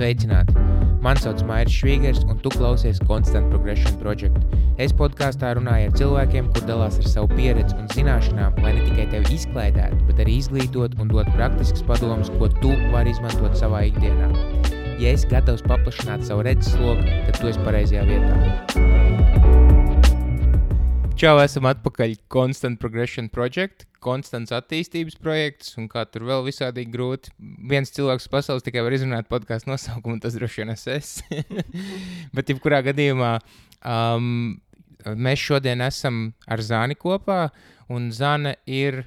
Sveicināti! Mani sauc Mairis Švīgers, un tu klausies Constant Progression Project. Es podkāstā runāju ar cilvēkiem, kur dalās ar savu pieredzi un zināšanām, lai ne tikai tevi izklaidētu, bet arī izglītot un dot praktiskas padomus, ko tu vari izmantot savā ikdienā. Ja esi gatavs paplašināt savu redzesloku, tad tu esi pareizajā vietā. Čau, esam atpakaļ Constant Progression Project, konstants attīstības projekts, un kā tur vēl visādīgi grūti. Viens cilvēks pasaules tikai var izrunāt podcastu nosaukumu, un tas droši vien es. Bet jebkurā gadījumā mēs šodien esam ar Zani kopā, un Zana ir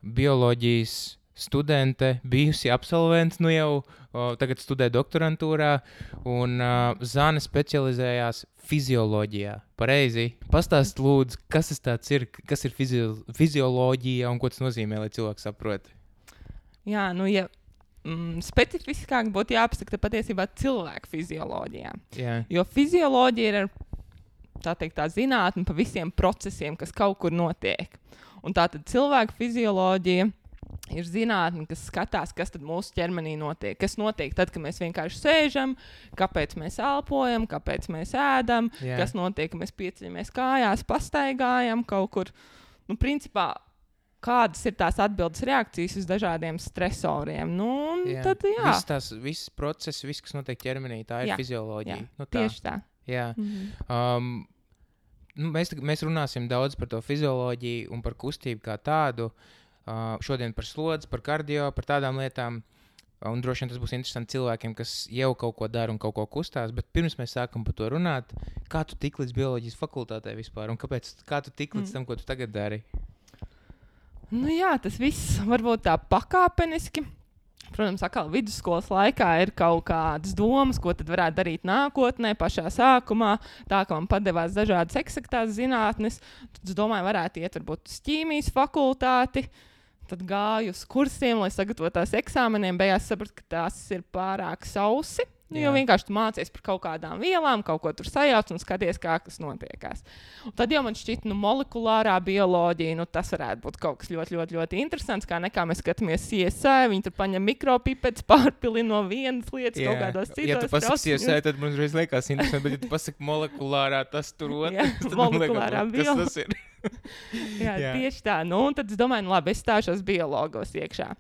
bioloģijas studente, bijusi absolvents, nu jau tagad studē doktorantūrā, un Zana specializējās fizioloģijā. Pareizi? Pastāst lūdzu, kas tas tāds ir, kas ir fizioloģija un ko tas nozīmē, lai cilvēks saprot? Jā, nu ja specifiskāk būtu jāpasaka patiesībā cilvēku fizioloģijā. Jā. Jo fizioloģija ir tā zinātne pa visiem procesiem, kas kaut kur notiek. Un tātad cilvēku fizioloģija ir zinātne, kas skatās, kas tad mūsu ķermenī notiek. Kas notiek tad, kad mēs vienkārši sēžam, kāpēc mēs elpojam, kāpēc mēs ēdam, kas notiek, kad mēs pieceļamies kājās, pastaigājam kaut kur. Nu, principā, kādas ir tās atbildes reakcijas uz dažādiem stresoriem. Nu, un tad, jā. Viss process, viss, kas notiek ķermenī, tā ir fizioloģija. Jā, nu, tā. Tieši tā. Jā. Mēs runāsim daudz par to fizioloģiju un par kustību kā tādu. Šodien par slodzi, par kardio, par tādām lietām. Un droši vien tas būs interesanti cilvēkiem, kas jau kaut ko dara un kaut ko kustās. Bet pirms mēs sākam par to runāt, kā tu tik līdz bioloģijas fakultātē vispār? Un kā tu tik līdz tam, ko tu tagad dari? Nu jā, tas viss varbūt tā pakāpeniski. Protams, atkal vidusskolas laikā ir kaut kādas domas, ko tad varētu darīt nākotnē, pašā sākumā. Tā, ka man padevās dažādas eksaktās zinātnes. Tad es domāju, varētu iet varbūt uz ķīmijas fakultāti. Tad gāju uz kursiem, lai sagatavotās eksāmeniem. Beigās sapratu, ka tās ir pārāk sausi. Jo vienkārši tu mācies par kaut kādām vielām, kaut ko tur sajauc un skaties, kā kas notiekās. Un tad jau man šķiet, molekulārā bioloģija, tas varētu būt kaut kas ļoti, ļoti, ļoti interesants, kā nekā mēs skatāmies CSI, viņi tur paņem mikropipetes, pārpilina no vienas lietas kaut kādos citos. Ja tu pasaki CSI, tad man uzreiz liekas interesanti, bet ja tu pasaki molekulārā, tas tur otrs, tad molekulārā liekas, kas tas ir? Jā, tieši tā. Nu, un tad es domāju, labi, es stāšos biologos iekšā.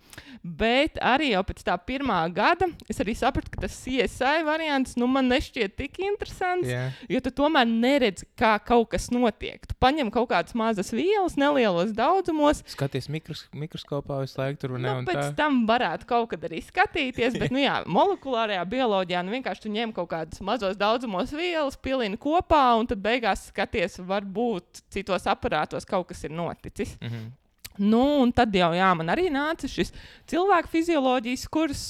Bet arī jau pēc tā pirmā gada es arī sapratu, ka tas CSI variants man nešķiet tik interesants, jo tu tomēr neredzi, kā kaut kas notiek. Tu paņem kaut kādas mazas vielas, nelielos daudzumos. Skaties mikroskopā visu laiku tur un ne un tā. Pēc tam varētu kaut kad arī skatīties, bet, molekulārajā bioloģijā vienkārši tu ņem kaut kādas mazos daudzumos vielas, pilini kopā un tad beigās skaties, varbūt citos aparātos kaut kas ir noticis. Mhm. Nu, un tad jau, man arī nāca šis cilvēku fizioloģijas kurs,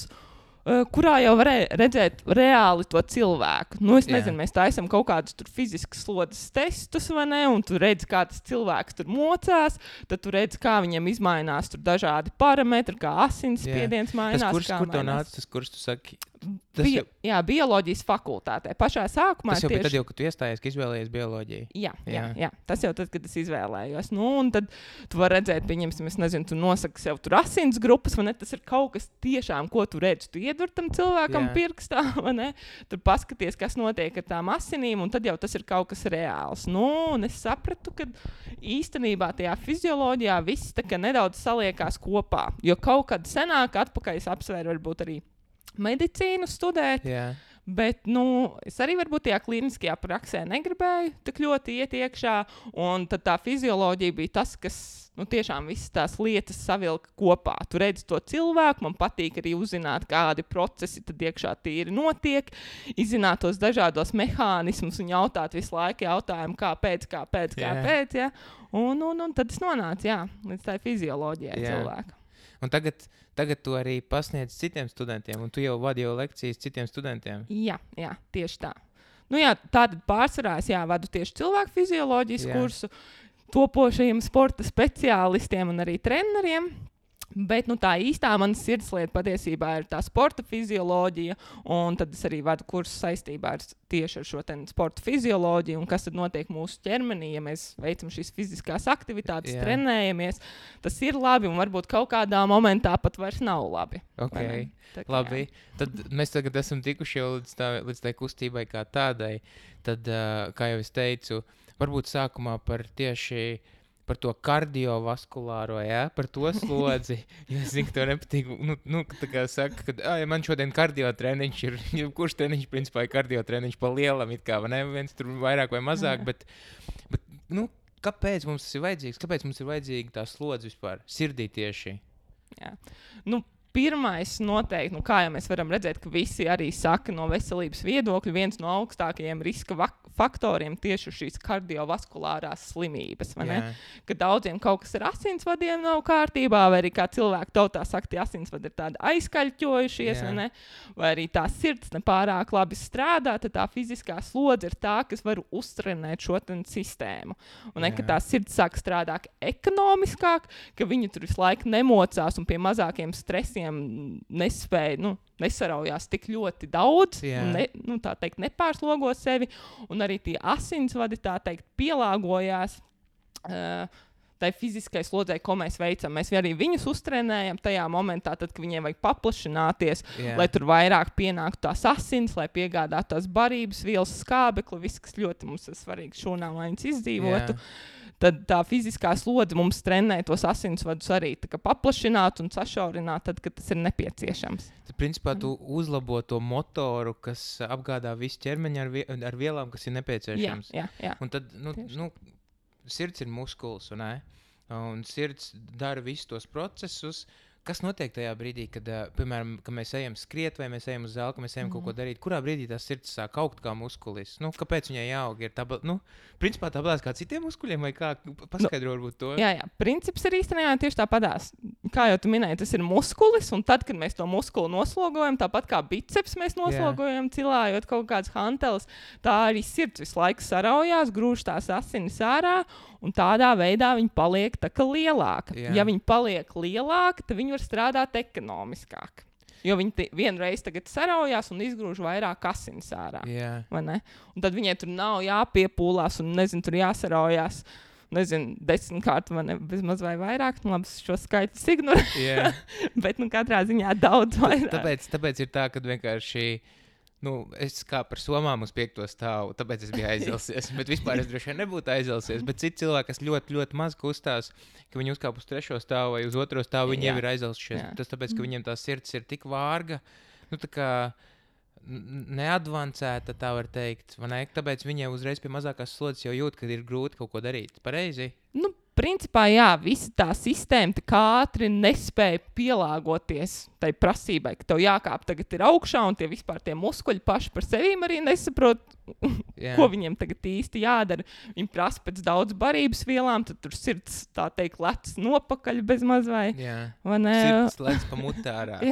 kurā jau varēja redzēt reāli to cilvēku. Nu, es nezinu, mēs taisam kaut kādus tur fiziskas slodzes testus, vai ne, un tu redzi, kā tas cilvēks tur mocās, tad tu redzi, kā viņam izmainās tur dažādi parametri, kā asinsspiediens mainās. Tas kurs, kur tev nāca, tas kurs, tu saki? Bioloģijas fakultātē. Pašā sākumā tas jau bija tad, ka tu iestājies, ka izvēlējies bioloģiju. Jā. Tas jau tad, kad es izvēlējos. Nu, un tad tu vari redzēt, pieņemsim, es nezinu, tu nosaki sev tur asins grupas, vai ne? Tas ir kaut kas tiešām, ko tu redzi. Tu iedur tam cilvēkam pirkstā, vai ne? Tur paskaties, kas notiek ar tām asinīm, un tad jau tas ir kaut kas reāls. Nu, un es sapratu, ka īstenībā tajā fizioloģijā viss tā kā nedaudz saliekās kopā. Jo kaut kad senāk atpakaļ es apsvēru varbūt arī medicīnu studēt, bet, es arī varbūt tajā klīniskajā praksē negribēju tik ļoti iet iekšā, un tad tā fizioloģija bija tas, kas, tiešām visas tās lietas savilka kopā. Tu redzi to cilvēku, man patīk arī uzzināt, kādi procesi tad iekšā tīri notiek, izzināt tos dažādos mehānismus un jautāt visu laiku jautājumu, kāpēc, jā. Un tad es nonācu, līdz tā fizioloģijai cilvēka. Un tagad tu arī pasniedz citiem studentiem, un tu jau vadi lekcijas citiem studentiem. Jā, tieši tā. Tātad pārsvarā es vadu tieši cilvēku fizioloģijas kursu topošajiem sporta speciālistiem un arī treneriem. Bet tā īstā manas sirdslieta patiesībā ir tā sporta fizioloģija, un tad es arī vadu kursus saistībā tieši ar šo sporta fizioloģiju, un kas tad notiek mūsu ķermenī, ja mēs veicam šīs fiziskās aktivitātes, trenējamies. Tas ir labi, un varbūt kaut kādā momentā pat vairs nav labi. Okay. Labi, tad mēs tagad esam tikuši jau līdz tai kustībai kā tādai. Tad, kā jau es teicu, varbūt sākumā par to kardiovaskulāro, par to slodzi. Ja es zinu, ka tev nepatīk, tā kā saka, ka ja man šodien kardiotreniņš ir, kurš treniņš principā ir kardiotreniņš pa lielam, it kā, vai ne? Viens tur vairāk vai mazāk, bet kāpēc mums tas ir vajadzīgs? Kāpēc mums ir vajadzīga tā slodze vispār? Sirdī tieši. Jā. Pirmais noteikti, kā jau mēs varam redzēt, ka visi arī saka no veselības viedokļa, viens no augstākajiem riska faktoriem tieši šīs kardiovaskulārās slimības. Ka daudziem kaut kas ar asinsvadiem nav kārtībā, vai arī kā cilvēku tautā saka, tie asinsvadi ir tādi aizkaļķojušies, vai arī tā sirds nepārāk labi strādā, tad tā fiziskā slodze ir tā, kas var uztrenēt šo sistēmu. Un ka tā sirds sāk strādāt ekonomiskāk, ka viņi tur visu laiku nemocās un pie mazākiem stresiem nespēja, nesaraujās tik ļoti daudz, un tā teikt, nepārslogo sevi, un arī tie asinsvadi, tā teikt, pielāgojās tai fiziskai slodzei, ko mēs veicam. Mēs arī viņus uztrenējam tajā momentā, tad, kad viņiem vajag paplašināties, lai tur vairāk pienāktu tās asins, lai piegādātu tās barības vielas, skābekli, viss, kas ļoti mums ir svarīgi šūnām, lai viņas izdzīvotu. Tad tā fiziskā slodze mums trenē tos asinsvadus arī paplašināt un sašaurināt, tad, kad tas ir nepieciešams. Tad, principā, tu uzlabo to motoru, kas apgādā visu ķermeņu ar vielām, kas ir nepieciešams. Jā. Un tad, sirds ir muskulis, un sirds dara visus tos procesus. Kas notiek tajā brīdī, kad, piemēram, kad mēs ejam skriet vai mēs ejam uz zāli, ka mēs ejam kaut ko darīt? Kurā brīdī tā sirds sāk augt kā muskulis? Kāpēc viņai jāaug? Principā tāpēc kā citiem muskuļiem vai kā? Paskaidro varbūt to. Jā. Princips ir īstenībā tieši tāpatās. Kā jau tu minēji, tas ir muskulis, un tad, kad mēs to muskuli noslogojam, tāpat kā biceps mēs noslogojam, cilājot kaut kādas hanteles, tā arī sirds visu laiku saraujās, grūž tās asinis ārā, un tādā veidā viņi paliek tā kā lielāka. Ja viņi paliek lielāka, tad viņi var strādāt ekonomiskāk. Jo viņi vienreiz tagad saraujās un izgrūž vairāk asins ārā. Vai ne? Un tad viņai tur nav jāpiepūlās un, tur jāsaraujās. 10 kārt vai bezmaz vai vairāk. Labi, šo skaitu ignorēju. Bet, katrā ziņā daudz vairāk. Tāpēc ir tā, ka vienkārši es kā par somām uz 5. stāvu, tāpēc es biju aizilsies. Bet vispār es droši vien nebūtu aizilsies. Bet citi cilvēki, kas ļoti, ļoti maz kustās, ka viņi uzkāp uz 3. stāvu vai uz 2. stāvu, viņi jau ir aizilsies. Tas tāpēc, ka viņiem tā sirds ir tik vārga, tā kā neadvancēta, tā var teikt. Tāpēc viņiem uzreiz pie mazākās slodzes jau jūt, ka ir grūti kaut ko darīt. Pareizi? Principā, visa tā sistēma tik ātri nespēja pielāgoties tai prasībai, ka tev jākāp tagad ir augšā, un tie muskuļi paši par sevīm arī nesaprot, ko viņiem tagad īsti jādara. Viņi prasa pēc daudz barības vielām, tad tur sirds, tā teikt, lec nopakaļ bez maz vai ne? Sirds lec pa mutārā.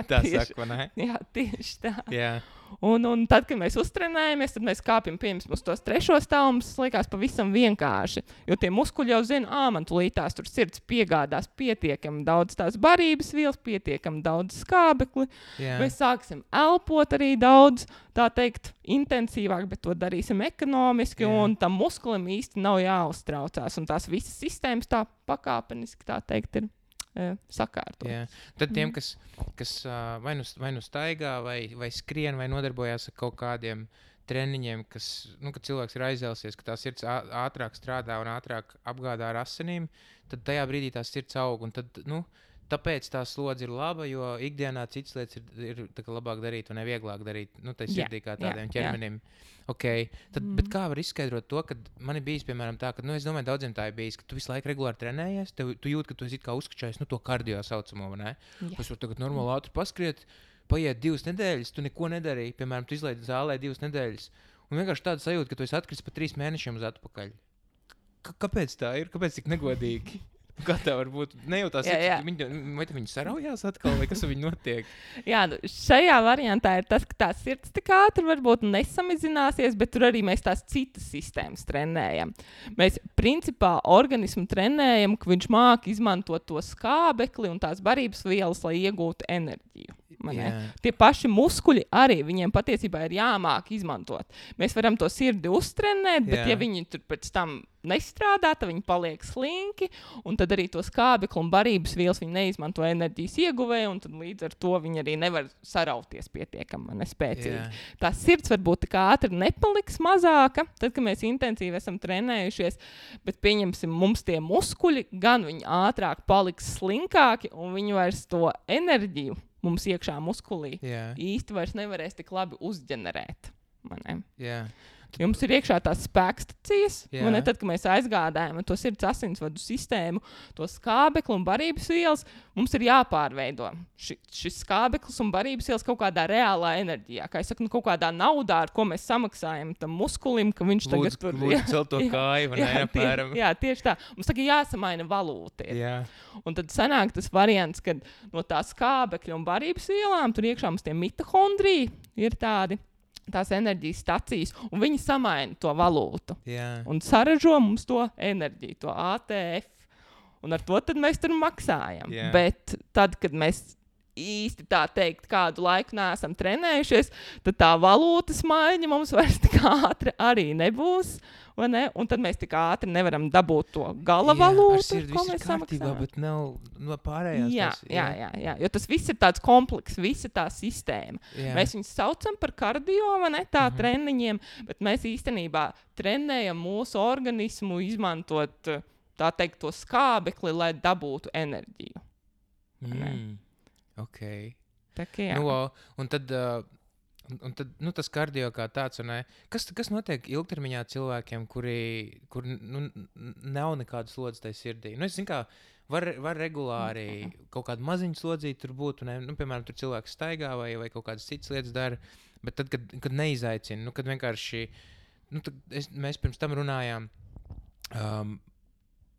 Tā tieši, saka, vai ne? Jā, tieši tā. Jā. Un tad, kad mēs uztrenējamies, tad mēs kāpjam uz tos 3. stāvu, mums liekas pavisam vienkārši. Jo tie muskuļi jau zina, man tulītās tur sirds piegādās pietiekami daudz tās barības vielas, pietiekami daudz skābekli. Mēs sāksim elpot arī daudz, tā teikt, intensīvāk, bet to darīsim ekonomiski, un tam muskulim īsti nav jāuztraucās. Un tās visas sistēmas tā pakāpeniski, tā teikt, ir sakārtot. Tad tiem, kas vai nu staigā, vai skrien, vai nodarbojās ar kaut kādiem treniņiem, kad cilvēks ir aizēlsies, ka tā sirds ātrāk strādā un ātrāk apgādā ar asinīm, tad tajā brīdī tā sirds aug. Un tad, tāpēc tā slodze ir laba, jo ikdienā citas lietas ir labāk darīt un vieglāk darīt. Tai sirdī kā tādiem ķermenim. Okay. Bet kā var izskaidrot to, ka man ir bijis, piemēram, tā, ka, es domāju, daudziem tā ir bijis, ka tu visu laiku regulāri trenējies, tu jūti, ka tu esi kā uzskačājis, to kardio saucamo, vai ne? Es varu tagad normāli ātri paskriet, paiet 2 nedēļas, tu neko nedarīji, piemēram, tu izlaidi zālē 2 nedēļas, un vienkārši tāda sajūta, ka tu esi atkritis pa 3 mēnešiem uz atpakaļ. Kāpēc tā ir? Kāpēc tik negodīgi? Kā tev varbūt nejūtās, vai viņi saraujās atkal, vai kas ar viņu notiek? Jā, šajā variantā ir tas, ka tā sirds tik ātri varbūt nesamazināsies, bet tur arī mēs tās citas sistēmas trenējam. Mēs principā organismu trenējam, ka viņš māk izmantot to skābekli un tās barības vielas, lai iegūtu enerģiju. Tie paši muskuļi arī viņiem patiesībā ir jāmāk izmantot. Mēs varam to sirdi uztrenēt, bet ja viņi tur pēc tam nestrādā, tad viņi paliek slinki, un tad arī to skābekli un barības vielas viņi neizmanto enerģijas ieguvēju, un tad līdz ar to viņi arī nevar sarauties pietiekami nespēcīgi. Tā sirds varbūt tik ātri nepaliks mazāka, tad, kad mēs intensīvi esam trenējušies, bet pieņemsim, mums tie muskuļi gan viņi ātrāk paliks slinkāki, un viņi vairs to enerģiju mums iekšā muskulī īsti vairs nevarēs tik labi uzģenerēt. Jums ir iekšā tās spēkstacijas, tad, kad mēs aizgādājam to sirds asinsvadu sistēmu, to skābekli un barības vielas, mums ir jāpārveido šis skābeklis un barības vielas kaut kādā reālā enerģijā. Kā es saku, kaut kādā naudā, ar ko mēs samaksājam tam muskulim, ka viņš tagad tur... Lūdzu celt to kāju, apmēram. Tieši tā. Mums tagad jāsamaina valūta. Un tad sanāk tas variants, kad no tā skābekļa un barības vielām tur iekšā mums tie mitohondriji ir tādi, tās enerģijas stacijas, un viņi samaina to valūtu. Un saražo mums to enerģiju, to ATF. Un ar to tad mēs tur maksājam. Bet tad, kad mēs īsti tā teikt kādu laiku neesam trenējušies, tad tā valūtas maiņa mums vairs tik ātri arī nebūs. Vai ne? Un tad mēs tik ātri nevaram dabūt to gala valūtu, ko mēs samaksājam. Bet nav no pārējās. Jā. Jo tas viss ir tāds komplekss, visa tā sistēma. Mēs viņus saucam par kardio, vai ne, tā treniņiem, bet mēs īstenībā trenējam mūsu organismu izmantot, tā teikt, to skābekli, lai dabūtu enerģiju. Ok. Tā kā jā. Un tad tas kardio kā tāds, kas notiek ilgtermiņā cilvēkiem, kur nav nekādas slodzes tai sirdī? Es zinu, kā var regulāri kaut kādu maziņu slodzīti tur būt, piemēram, tur cilvēks staigā vai kaut kādas citas lietas dara, bet tad, kad neizaicina, kad vienkārši, mēs pirms tam runājām,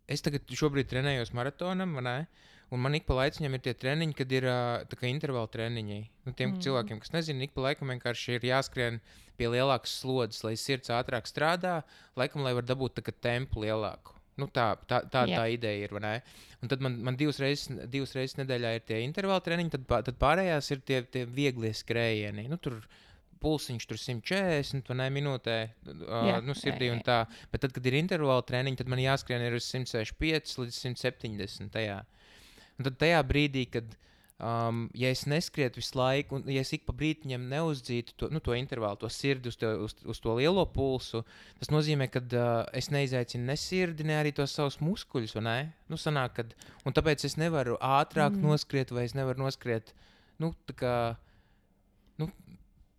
es tagad šobrīd trenējos maratonam, un man ik pa laiciņam ir tie treniņi, kad ir tā kā intervāla treniņi. Tiem cilvēkiem, kas nezina, ik pa laikam vienkārši ir jāskrien pie lielākas slodzes, lai sirds ātrāk strādā, laikam, lai var dabūt tā kā tempu lielāku. Tā ideja ir, vai ne? Un tad man divas reizes nedēļā ir tie intervāla treniņi, tad pārējās ir tie vieglie skrējieni. Tur pulsiņš tur 140 minūtē sirdī un tā. Bet tad, kad ir intervāla treniņi, tad man jāskrien ir uz 165 līdz 170 tajā. Un tad tajā brīdī, kad ja es neskrietu visu laiku, un ja es ik pa brītiņam neuzdzītu to intervālu, to sirdi uz to lielo pulsu, tas nozīmē, ka es neizaicinu ne sirdi, ne arī tos savus muskuļus, vai ne? Sanāk, un tāpēc es nevaru ātrāk noskriet, vai es nevaru noskriet, tā kā,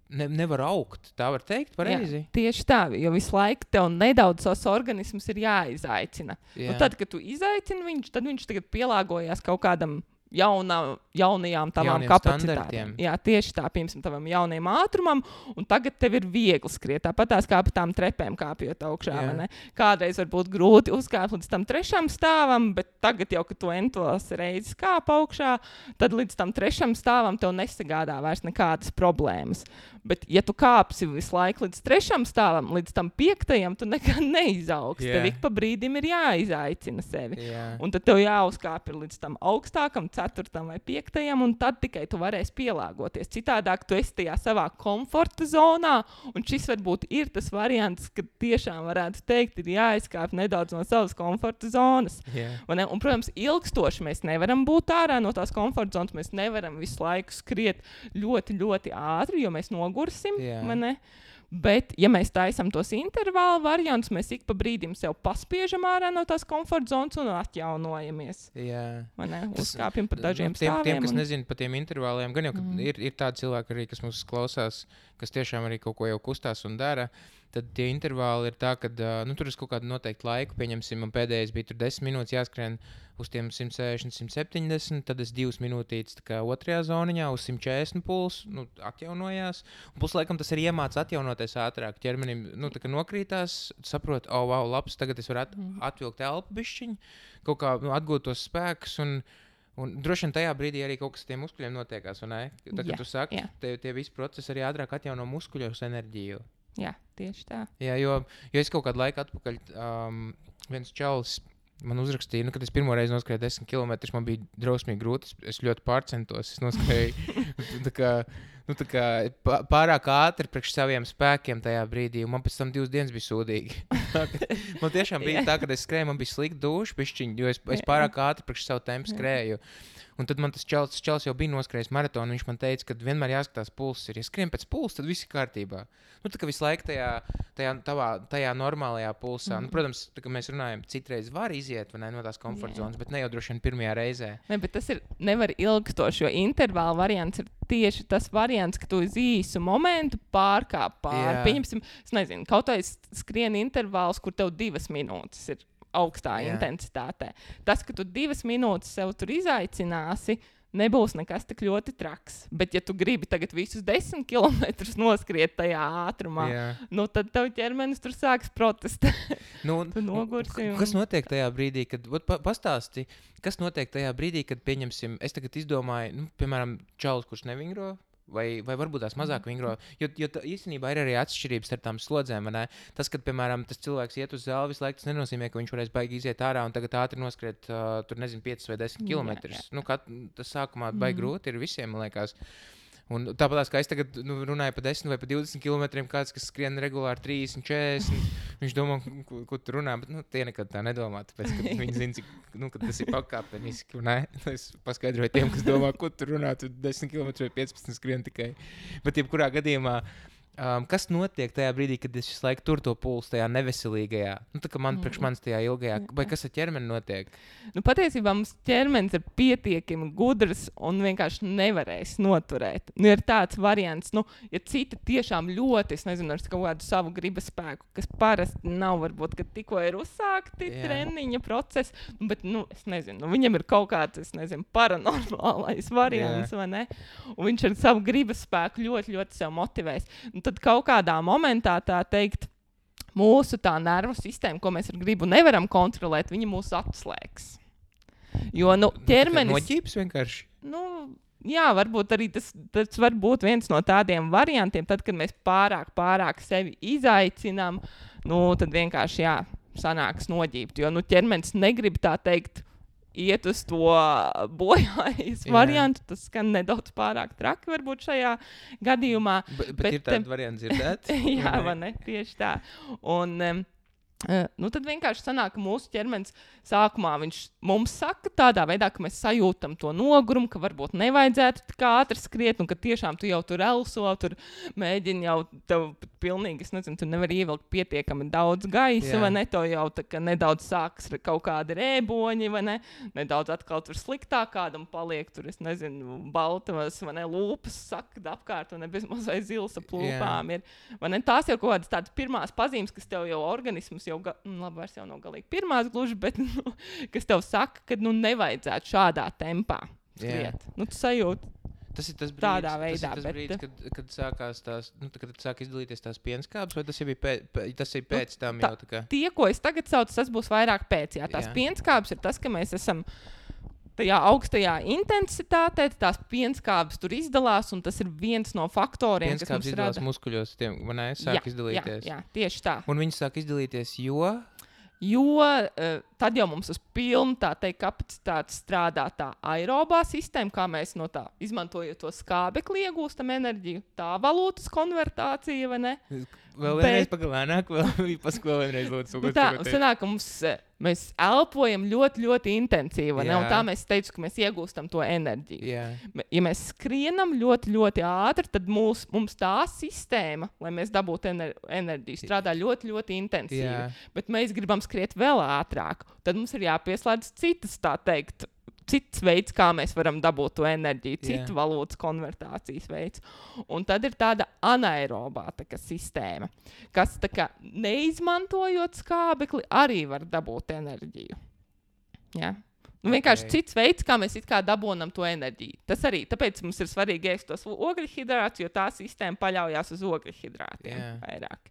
nevar augt, tā var teikt, pareizi? Jā, tieši tā, jo visu laiku tev nedaudz savs organisms ir jāizaicina. Tad, kad tu izaicini viņš, tad viņš tagad pielāgojās kaut kādam jaunajām tavām kapacitātēm. Jā, tieši tā, piemēram, tavam jaunajam ātrumam, un tagad tev ir viegli skriet. Tāpat tās kā pa tām trepēm kāpjot augšā, vai ne? Kādreiz var būt grūti uzkāpt līdz tam 3. stāvam, bet tagad jau, kad tu entos reizes kāp augšā, tad līdz tam 3. stāvam tev nesagādā vairs nekādas problēmas. Bet, ja tu kāpsi visu laiku līdz 3. stāvam, līdz tam 5. tu nekad neizaugs. Tev ik pa brīdim ir jāizaicina sevi. Un tad tev jāuzkāp ir līdz tam augstākam, 4. vai 5. un tad tikai tu varēsi pielāgoties. Citādāk tu esi tajā savā komforta zonā, un šis varbūt ir tas variants, ka tiešām varētu teikt, ir jāizkāp nedaudz no savas komforta zonas. Un, protams, ilgstoši mēs nevaram būt ārā no tās komforta zonas, mēs nevaram visu laiku skriet ļoti, ļoti ātri, jo mēs nogursim, vai ne? Bet, ja mēs taisam tos intervālu variantus, mēs ik pa brīdim sev paspiežam ārā no tās komforta zonas un atjaunojamies. Uzkāpjam nezinu par dažiem stāviem. Tiem, kas nezina par tiem intervāliem, gan jau, ka ir tādi cilvēki arī, kas mums klausās, kas tiešām arī kaut ko jau kustās un dara, tad tie intervāli ir tā, ka tur ir kaut kāda noteikta laika, pieņemsim, man pēdējais bija tur 10 minūtes jāskrien uz tiem 160, 170, tad es 2 minūtītes tā kā otrajā zoniņā uz 140 puls, atjaunojās, un plus laikam tas arī iemāc atjaunoties ātrāk, ķermenim, tā kā nokrītās, saprot, wow, labs, tagad es varu atvilkt elpu bišķiņu, kaut kā atgūt tos spēkus, un droši vien tajā brīdī arī kaut kas ar tiem muskuļiem notiekās, vai ne? Tā, kad tu saki, tie visi procesi arī ātrāk atjauno muskuļos enerģiju. Jā, tieši tā. Jā, jo es kaut kādu laiku atpakaļ, viens čalis man uzrakstīja, kad es pirmo reizi noskrēju 10 km, man bija drausmīgi grūti, es ļoti pārcentos, es noskrēju tā kā pārāk ātri priekš saviem spēkiem tajā brīdī, un man pēc tam 2 dienas bija sūdīgi. Man tiešām bija tā, kad es skrēju, man bija slikta duša pišķiņa, jo es pārāk ātri priekš savu tempu skrēju. Un tad man tas čalis jau bija noskrējis maratonu, viņš man teica, ka vienmēr jāskatās pulss ir. Ja skrien pēc pulsa, tad viss ir kārtībā. Tā kā visu laiku tajā normālajā pulsā. Protams, tā kā mēs runājam, citreiz var iziet no tās komforta zonas, bet ne jau droši vien pirmajā reizē. Ne, bet tas nevar ilgstoši, jo intervāla variants ir tieši tas variants, ka tu uz īsu momentu pārkāp pāri. Pieņemsim, es nezinu, kaut vai skrien intervāls, kur tev 2 minūtes ir augstā intensitātē. Tas, ka tu 2 minūtes sev tur izaicināsi, nebūs nekas tik ļoti traks. Bet, ja tu gribi tagad visus 10 kilometrus noskriet tajā ātrumā, tad tev ķermenis tur sāks protestēt. Tu nogursi. Kas notiek tajā brīdī, kad, pastāsti, kas notiek tajā brīdī, kad, pieņemsim, es tagad izdomāju, piemēram, čalis, kurš nevingro, vai varbūt tās mazāk vingro, jo īstenībā ir arī atšķirības starp tām slodzēm, vai ne? Tas, kad, piemēram, tas cilvēks iet uz zāli visu laiku, tas nenozīmē, ka viņš varēs baigi iziet ārā un tagad ātri noskriet, 5 vai 10 kilometrus. Tas sākumā baigi grūti ir visiem, man liekas. Un tāpēc, kā es tagad runāju par 10 vai par 20 kilometriem, kāds, kas skrien regulāri 30, 40, viņš domā, ko tu runā, bet tie nekad tā nedomā, tāpēc, ka viņi zina, cik, ka tas ir pakāpeniski, ne? Es paskaidroju tiem, kas domā, ko tu runā, tu 10 kilometru vai 15 skrien tikai. Bet jebkurā gadījumā, kas notiek tajā brīdī, kad es visu laiku tur to pulsu tajā neveselīgajā? Tā kā priekš manis tajā ilgajā, vai kas ar ķermeni notiek? Patiesībā mums ķermenis ir pietiekami gudrs un vienkārši nevarēs noturēt. Ir tāds variants, ja citi tiešām ļoti, es nezinu, ar kaut kādu savu gribas spēku, kas parasti nav, varbūt, ka tikko ir uzsākti treniņa procesi, bet, es nezinu, viņam ir kaut kāds, es nezinu, paranormālais variants, vai ne? Un viņš ar savu gribas spēku ļoti, ļoti sev motivēs. Tad kaut kādā momentā, tā teikt, mūsu tā nervu sistēma, ko mēs ar gribu nevaram kontrolēt, viņa mūs atslēgs. Jo, ķermenis... Noģības vienkārši? Jā, varbūt arī tas var būt viens no tādiem variantiem, tad, kad mēs pārāk sevi izaicinām, tad vienkārši, sanāks noģībt. Jo, ķermenis negrib tā teikt, iet uz to bojājas variantu, tas skan nedaudz pārāk traki varbūt šajā gadījumā. Bet ir tāda varianta dzirdēt? Jā, vai ne? Tieši tā. Un tad vienkārši sanāk, ka mūsu ķermenis sākumā viņš mums saka tādā veidā, ka mēs sajūtam to nogurumu, ka varbūt nevajadzētu tik ātri skriet, un ka tiešām tu jau tur elso, tur mēģini jau tev pilnīgi, es nezinu, tu nevari ievilkt pietiekami daudz gaisa, vai ne, to jau tā kā nedaudz sākas kaut kādi rēboņi, vai ne, nedaudz atkal tur sliktāk kādam paliek, tur, es nezinu, baltavas, vai ne, lūpas sakda apkārt, un ne bezmaz vai zils ap lūpām ir, vai ne, tās jau kaut kādas tādas pirmās pazīmes, kas tev jau organisms jau, labi, vairs jau nav galīgi pirmās gluži, bet, kas tev saka, ka, nevajadzētu šādā tempā skriet. Tu sajūti tas ir tas brīdis, tādā veidā. Tas ir tas brīdis, kad sākās tās, kad sāk izdalīties tās pienskābes, vai tas jau bija tas ir pēc tam jau tā kā? Tie, ko es tagad saucu, tas būs vairāk pēc, tās pienskābes ir tas, ka mēs esam tajā augstajā intensitātē, tās pienskābes tur izdalās, un tas ir viens no faktoriem, kas mums rada. Pienskābes muskuļos, vai ne, sāk izdalīties. Jā, tieši tā. Un viņi sāk izdalīties, jo tad jau mums uz pilnu, tā teikt, kapacitāti strādā tā aerobā sistēma, kā mēs no tā izmantojot to skābekli iegūstam enerģiju, tā valūtas konvertācija, vai ne? Vēl vienreiz pagalēnāk, vēlreiz lūdzu. Tā, sanāk, ka mēs elpojam ļoti, ļoti intensīvi, ne? Un tā mēs teicu, ka mēs iegūstam to enerģiju. Ja mēs skrienam ļoti, ļoti ātri, tad mums tā sistēma, lai mēs dabūtu enerģiju, strādā ļoti, ļoti intensīvi. Bet mēs gribam skriet vēl ātrāk. Tad mums ir jāpieslēdz citas, tā teikt, cits veids, kā mēs varam dabūt to enerģiju, citu valūtas konvertācijas veids. Un tad ir tāda anaerobā sistēma, kas tā kā neizmantojot skābekli, arī var dabūt enerģiju. Ja? Vienkārši cits veids, kā mēs it kā dabonam to enerģiju. Tas arī, tāpēc mums ir svarīgi ēst tos ogļhidrātus, jo tā sistēma paļaujās uz ogļhidrātiem vairāk.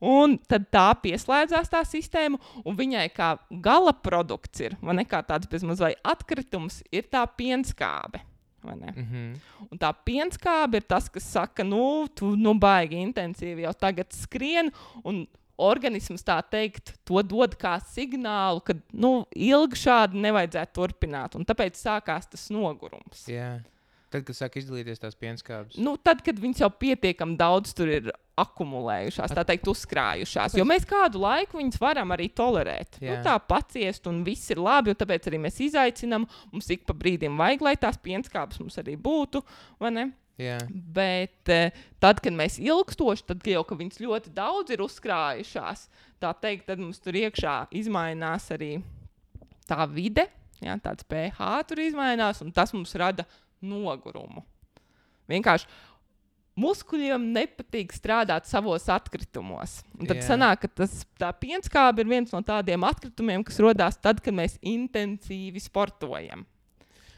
Un tad tā pieslēdzās tā sistēma, un viņai kā gala produkts ir, vai ne, kā tāds bezmaz vai atkritums, ir tā pienskābe. Vai ne? Un tā pienskābe ir tas, kas saka, tu baigi intensīvi jau tagad skrien, un organisms tā teikt, to dod kā signālu, ka ilgi šādi nevajadzētu turpināt. Un tāpēc sākās tas nogurums. Jā. Tad, kad sāk izdalīties tās pienskābes? Tad, kad viņas jau pietiekami daudz tur ir akumulējušās, tā teikt, uzkrājušās. Jo mēs kādu laiku viņas varam arī tolerēt. Tā paciest un viss ir labi, un tāpēc arī mēs izaicinām. Mums ik pa brīdim vajag, lai tās pienskābes mums arī būtu, vai ne? Jā. Bet tad, kad mēs ilgstoši, tad jau, ka viņas ļoti daudz ir uzkrājušās, tā teikt, tad mums tur iekšā izmainās arī tā vide, tāds pH tur izmainās, un tas mums rada nogurumu. Vienkārši muskuļiem nepatīk strādāt savos atkritumos. Un tad sanāk, ka tā pienskābe ir viens no tādiem atkritumiem, kas rodās tad, kad mēs intensīvi sportojam.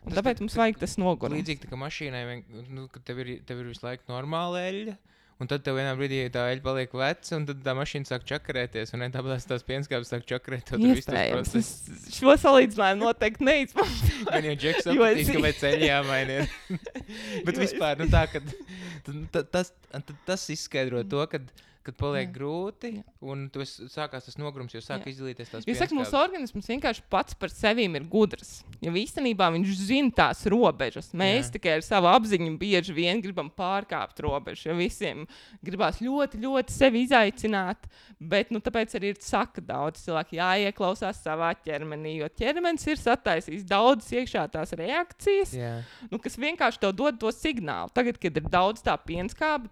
Un tāpēc mums vajag tas nogurums. Līdzīgi tā kā mašīnai, kad tev ir visu laiku normāla eļļa, un tad tev vienā brīdī tā eļļa paliek veca, un tad tā mašīna sāk čakarēties, un tāpēc tās pienskābes sāk čakarēt. Iespējams. Šo salīdzinājumu noteikti neizmantoju. Man jau Džeks sapratīs, kāpēc eļļa jāmaina ir. Bet vispār, tā, ka tas izskaidro to, kad paliek grūti, un sākās tas nogrums, jo sāk izdalīties tās pienskābes. Es saku, mūsu organisms vienkārši pats par sevīm ir gudrs. Jo īstenībā viņš zina tās robežas. Mēs tikai ar savu apziņu bieži vien gribam pārkāpt robežu, jo visiem gribās ļoti, ļoti sevi izaicināt, bet tāpēc arī ir saka daudz cilvēki jāieklausās savā ķermenī, jo ķermenis ir sataisījis daudzas iekšā tās reakcijas, kas vienkārši tev dod to signālu. Tagad, kad ir daudz tā pienskābe,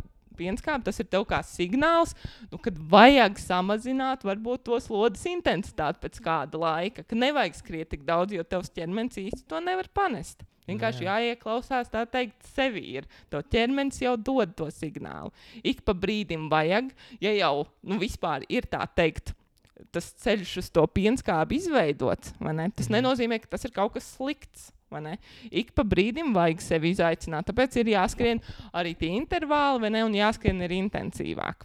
tas ir tev kā signāls, kad vajag samazināt varbūt to slodzes intensitāti pēc kāda laika, ka nevajag skriet tik daudz, jo tevs ķermenis īsti to nevar panest. Vienkārši jāieklausās, tā teikt, sevi ir. Tev ķermenis jau dod to signālu. Ik pa brīdim vajag, ja jau vispār ir tā teikt, tas ceļš uz to pienskābi izveidots, vai ne? Tas nenozīmē, ka tas ir kaut kas slikts. Ik pa brīdim vajag sevi izaicināt, tāpēc ir jāskrien arī tie intervāli, vai ne, un jāskrien arī intensīvāk.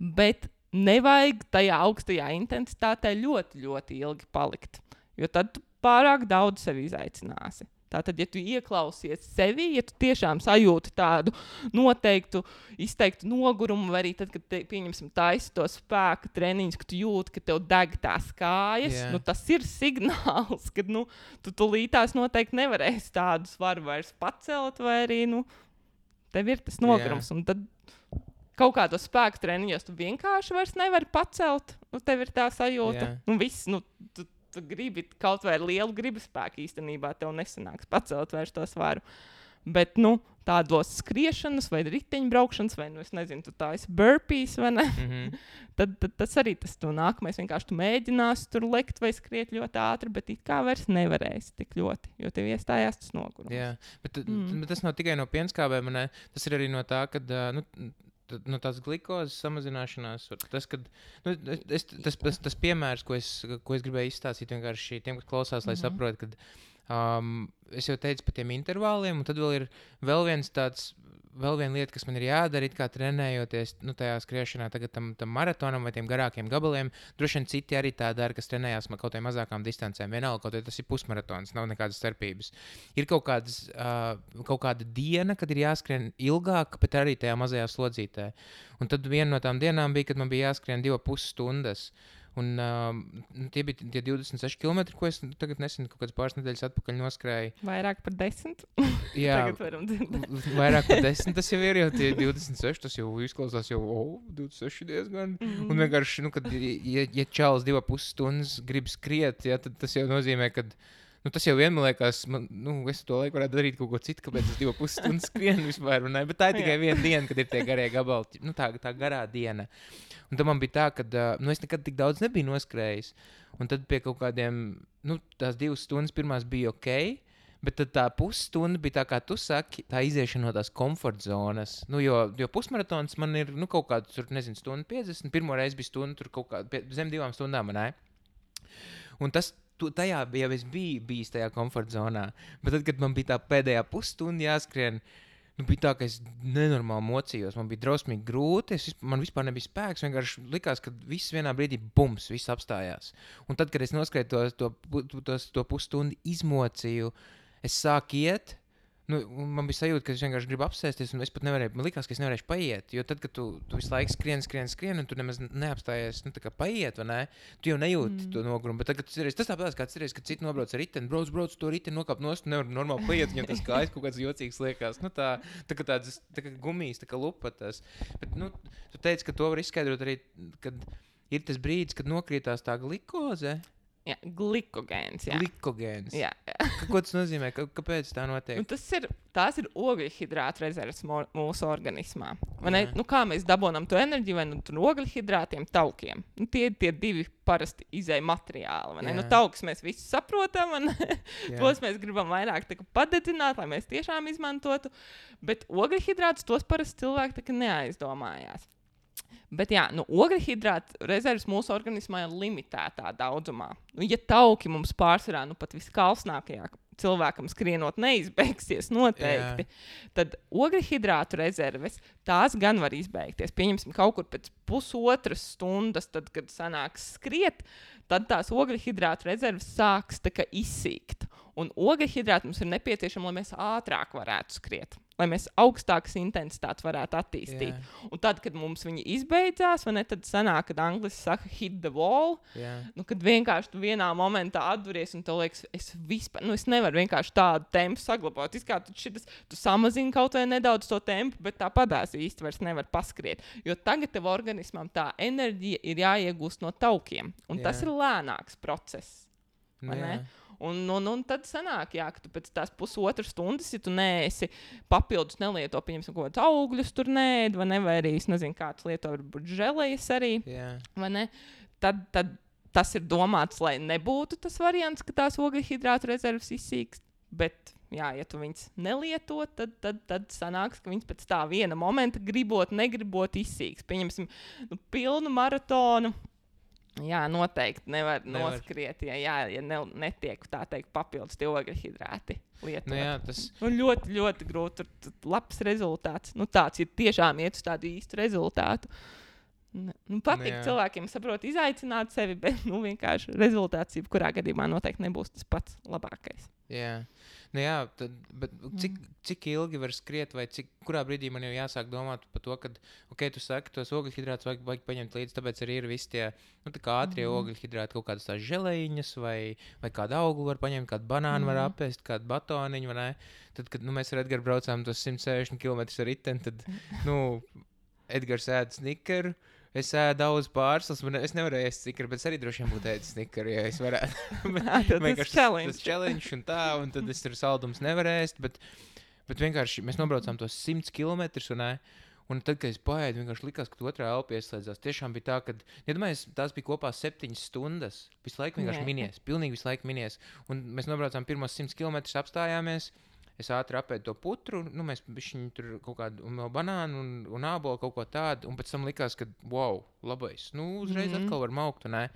Bet nevajag tajā augstajā intensitātē ļoti, ļoti ilgi palikt, jo tad tu pārāk daudz sevi izaicināsi. Tātad, ja tu ieklausies sevi, ja tu tiešām sajūti tādu noteiktu, izteiktu nogurumu, vai arī tad, kad pieņemsim taisi to spēku treniņus, ka tu jūti, ka tev deg tās kājas, tas ir signāls, ka tu tulītās noteikti nevarēsi tādu svaru vairs pacelt, vai arī tev ir tas nogurums. Un tad kaut kādos spēku treniņos tu vienkārši vairs nevari pacelt, tev ir tā sajūta. Viss, tu gribi kaut vai ar lielu gribaspēku īstenībā tev nesanāks pacelt vairs to svaru. Bet, tādos skriešanas vai riteņbraukšanas, vai, es nezinu, tu tā esi burpees, vai ne? tad tas arī tas tu nākamais. Vienkārši tu mēģināsi tur lekt vai skriet ļoti ātri, bet it kā vairs nevarēsi tik ļoti, jo tev iestājās tas nogurums. Jā, bet tas nav tikai no pienskābēm, ne? Tas ir arī no tā, kad, tās glikozes samazināšanās, tas piemērs, ko es gribēju izstāstīt vienkārši tiem, kas klausās, lai saprot, kad es jau teicu par tiem intervāliem, un tad vēl viena lieta, kas man ir jādara, it kā trenējoties tajā skriešanā tagad tam maratonam vai tiem garākiem gabaliem. Droši vien citi arī tā dara, kas trenējās kaut vai mazākām distancēm. Vienalga, kaut vai tas ir pusmaratons, nav nekādas starpības. Ir kaut kāda diena, kad ir jāskrien ilgāk, bet arī tajā mazajā slodzītē. Un tad viena no tām dienām bija, kad man bija jāskrien 2,5 stundas. Un tie bija tie 26 km, ko es tagad nesen kaut kādas pāris nedēļas atpakaļ noskrēju. Vairāk par 10? Jā, vairāk par 10 tas jau ir, jo tie 26, tas jau izklausās jau 26 diezgan. Un vienkārši, kad ja čalis 2,5 stundas grib skriet, tad tas jau nozīmē, ka Tas jau vien, man liekas, es to laiku varētu darīt kaut ko citu, kāpēc es 2,5 stundas skrienu vispār. Bet tā ir tikai viena diena, kad ir tie garie gabali, tā garā diena. Un tad man bija tā, ka es nekad tik daudz nebiju noskrējis. Un tad pie kaut kādiem, tās 2 stundas pirmās bija ok, bet tad tā pusstunda bija tā, kā tu saki, tā iziešana no tās komforta zonas. Jo pusmaratons man ir kaut kāds, tur, nezinu, stundu 50, pirmo reizi bija stunda, tur kaut kā zem 2 stundām, ne? Un tajā jau es biju bijis tajā komforta zonā. Bet tad, kad man bija tā pēdējā pusstunda jāskrien, bija tā, ka es nenormāli mocījos. Man bija drausmīgi grūti, man vispār nebija spēks. Vienkārši likās, ka viss vienā brīdī bums, viss apstājās. Un tad, kad es noskrēju to pusstundu izmocīju, es sāku iet. Man bija sajūta, ka es vienkārši gribu apsēsties, un es pat nevarēju, man likās, ka es nevarēšu paiet. Jo tad, kad tu visu laiku skrien, un tu nemaz neapstājies, tā kā paiet, vai ne? Tu jau nejūti to nogurumu. Bet tagad tas tāpēc, kad citi nobrauc ar riteni, brauc to riteni, nokāp nost, nevar normāli paiet, viņam tas kājas kaut kāds jocīgs liekas. Tā kā gumijas, tā kā lupatas. Bet, tu teici, ka to var izskaidrot arī, kad ir tas brīdis, kad nokrītās tā glikoze. Jā, glikogēns. Glikogēns. Jā. Ko tas nozīmē? Kāpēc tā notiek? Tās ir ogļhidrātu rezerves mūsu organismā. Kā mēs dabonam to enerģiju, vai ogļhidrātiem, taukiem. Tie ir tie 2 parasti izēja materiāli. Taukus mēs visi saprotam, tos mēs gribam vairāk padedzināt, lai mēs tiešām izmantotu. Bet ogļhidrātus tos parasti cilvēki neaizdomājās. Bet ogļhidrātu rezerves mūsu organismā ir limitētā daudzumā. Ja tauki mums pārsvarā pat viskalsnākajā cilvēkam skrienot neizbeigsies noteikti, tad ogļhidrātu rezerves tās gan var izbeigties. Pieņemsim kaut kur pēc pusotras stundas, tad, kad sanāks skriet, tad tās ogļhidrātu rezerves sāks izsīkt. Un ogļhidrāti mums ir nepieciešami, lai mēs ātrāk varētu skriet, lai mēs augstākas intensitātes varētu attīstīt. Yeah. Un tad, kad mums viņi izbeidzās, tad sanāk, kad angliski saka hit the wall, kad vienkārši tu vienā momentā atduries un tev liekas, es nevaru vienkārši tādu tempu saglabāt. Tu samazini kaut vai nedaudz to tempu, bet tāpatās īsti vairs nevar paskriet. Jo tagad tev organismam tā enerģija ir jāiegūst no taukiem. Un tas ir lēnāks process. Un tad sanāk, ka tu pēc tās pusotras stundas, ja tu neesi papildus nelieto, pieņemsim, kaut kādus augļus tur nēd, vai arī, es nezinu, kāds lieto varbūt želejas arī, vai ne? Tad tas ir domāts, lai nebūtu tas variants, ka tās ogļhidrātu rezerves izsīkst, bet, ja tu viņas nelieto, tad sanāks, ka viņas pēc tā viena momenta gribot, negribot izsīks. Pieņemsim, pilnu maratonu. Jā, noteikti nevar noskriet, ja netiek tā teikt papildus tie ogļhidrāti lietot. Tas ļoti, ļoti grūti. Tur labs rezultāts. Tāds ir tiešām iet uz tādu īstu rezultātu. Patīk cilvēkiem saprot izaicināt sevi, bet vienkārši rezultāts jebkurā gadījumā noteikti nebūs tas pats labākais. Jā. Bet cik ilgi var skriet, vai kurā brīdī man jau jāsāk domāt par to, ka, tu saki, tos ogļhidrātus vajag paņemt līdzi, tāpēc arī ir visi tie, tā kā ātrie ogļhidrāti, kaut kādas tās želejiņas, vai kādu auglu var paņemt, kādu banānu var apēst, kādu batoniņu, vai ne? Tad, kad mēs ar Edgaru braucām tos 160 km ar riteni, tad, Edgars ēd snikeru. Es ēdu daudz pārslas, es nevarēju ēst snikeri, bet es arī droši vien būtu ēdis snikeri, ja es varētu. Tas challenge un tad es tur saldums nevarēju ēst, bet vienkārši mēs nobraucām tos 100 km, un tad, kad es paēdu, vienkārši likās, ka otrā elpa ieslēdzās. Tiešām bija tā, ka, tās bija kopā 7 stundas, visu laiku vienkārši minies, pilnīgi visu laiku minies. Un mēs nobraucām pirmos 100 km, apstājāmies. Es ātri apēdu to putru, mēs bišķiņu tur kaut kādu banānu un ābolu kaut ko tādu, un pēc tam likās, ka, wow, labais, uzreiz atkal var maukt, un ne?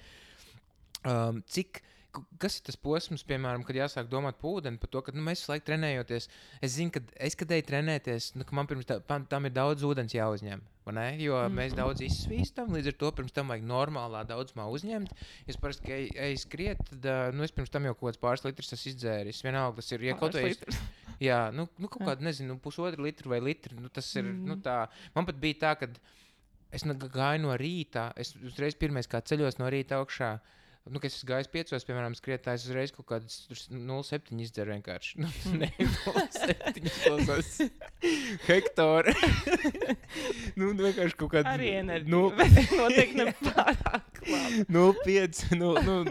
Kas ir tas posms, piemēram, kad jāsāk domāt par ūdeni, par to, ka mēs visu laiku trenējoties, es zinu, ka kad eju trenēties, ka man pirms tam ir daudz ūdens jāuzņem, vai ne? Jo mēs daudz izsvīstam, līdz ar to pirms tam vajag normālā daudzumā uzņemt. Es parasti, ka eju skriet, tad es pirms tam jau kaut kāds pāris litrs esmu izdzēris. Vienalga, tas ir, ja kaut vai... Jā, kaut kādu, nezinu, 1,5 litru vai litru, tas ir, tā. Man pat bija tā, ka es gāju no rīta, es uzreiz pirmais kā ceļos no rīta augšā, Kas es gājis 5, piemēram, skrietājs uzreiz kaut kādas 0,7 izdzer vienkārši. Ne, 0,7 klausās. Hektāri. Vienkārši kaut kāda... Arī enerģija, bet noteikti nepārāk labi. 0,5,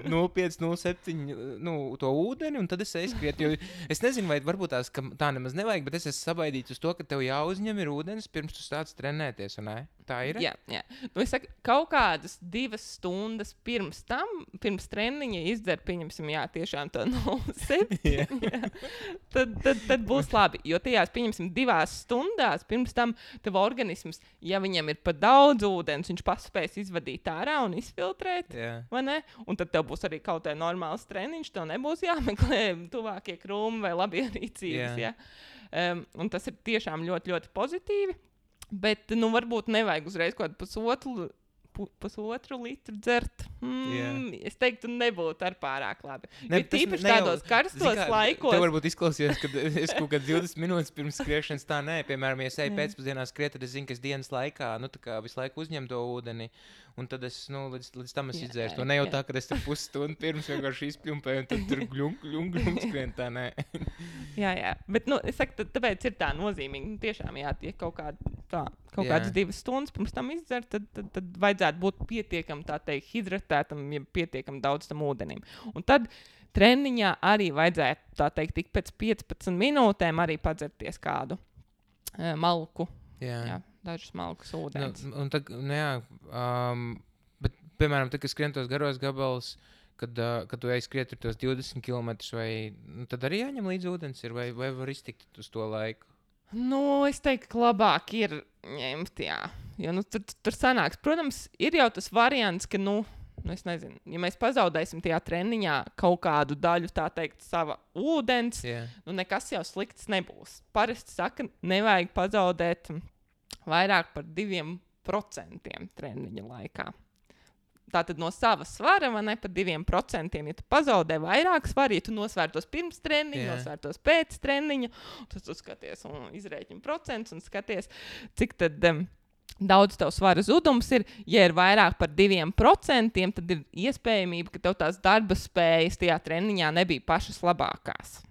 0,7, to ūdeni, un tad es skriet, jo es nezinu, vai varbūt tā nemaz nevajag, bet es esmu sabaidīts uz to, ka tev jāuzņem ir ūdens, pirms tu sāc trenēties, un ne? Tā ir? Jā. Es saku, kaut kādas 2 stundas pirms treniņa izdzer, pieņemsim, tiešām to 0,7. Tad būs labi, jo tajās, pieņemsim, 2 stundās pirms tam tev organisms, ja viņam ir pa daudz ūdens, viņš paspēs izvadīt ārā un izfiltrēt, vai ne? Un tad tev būs arī kaut kā normāls treniņš, tev nebūs jāmeklē tuvākie krūmi vai labierīcības, un tas ir tiešām ļoti, ļoti pozitīvi. Bet, varbūt nevajag uzreiz kaut kādu pusotru litru dzert. Es teiktu, nebūtu ar pārāk labi. Tīpaši tādos karstos laikos. Tev varbūt izklausījās, ka es kaut kāds 20 minūtes pirms skriešanas tā nē. Piemēram, ja es eju pēcpusdienā skriet, tad es zinu, ka es dienas laikā, tā kā visu laiku uzņem to ūdeni. Un tad es, līdz tam es izdzēru to. Ne jau tā, ka es tur pusstundu pirms vienkārši izpļumpēju un tad tur gļunk skrien, tā nē. Jā. Bet, es saku, tāpēc ir tā nozīmīgi. Tiešām, ja kaut kādas 2 stundas pirms tam izdzer, tad vajadzētu būt pietiekam, tā teikt, hidratētam, ja pietiekam daudz tam ūdenim. Un tad treniņā arī vajadzētu, tā teikt, tik pēc 15 minūtēm arī padzerties kādu malku. Jā. Dažus malkus ūdens. Bet, piemēram, kad skrien tos garos gabalus, kad tu ej skriet tos 20 km, tad arī jāņem līdz ūdens ir, vai var iztikt uz to laiku? Es teiktu, ka labāk ir ņemt, jo tur sanāks. Protams, ir jau tas variants, ka, es nezinu, ja mēs pazaudēsim tajā treniņā kaut kādu daļu, tā teikt, sava ūdens, nekas jau slikts nebūs. Parasti saka, nevajag pazaudēt vairāk par 2% treniņa laikā. Tātad no sava svara, vai ne, par 2%, ja tu pazaudē vairāk svara, ja tu nosvērtos pirms treniņa, nosvērtos pēc treniņa, tad tu skaties un izrēķini procentus un skaties, cik tad daudz tev svara zudums ir. Ja ir vairāk par 2%, tad ir iespējamība, ka tev tās darba spējas tajā treniņā nebija pašas labākās.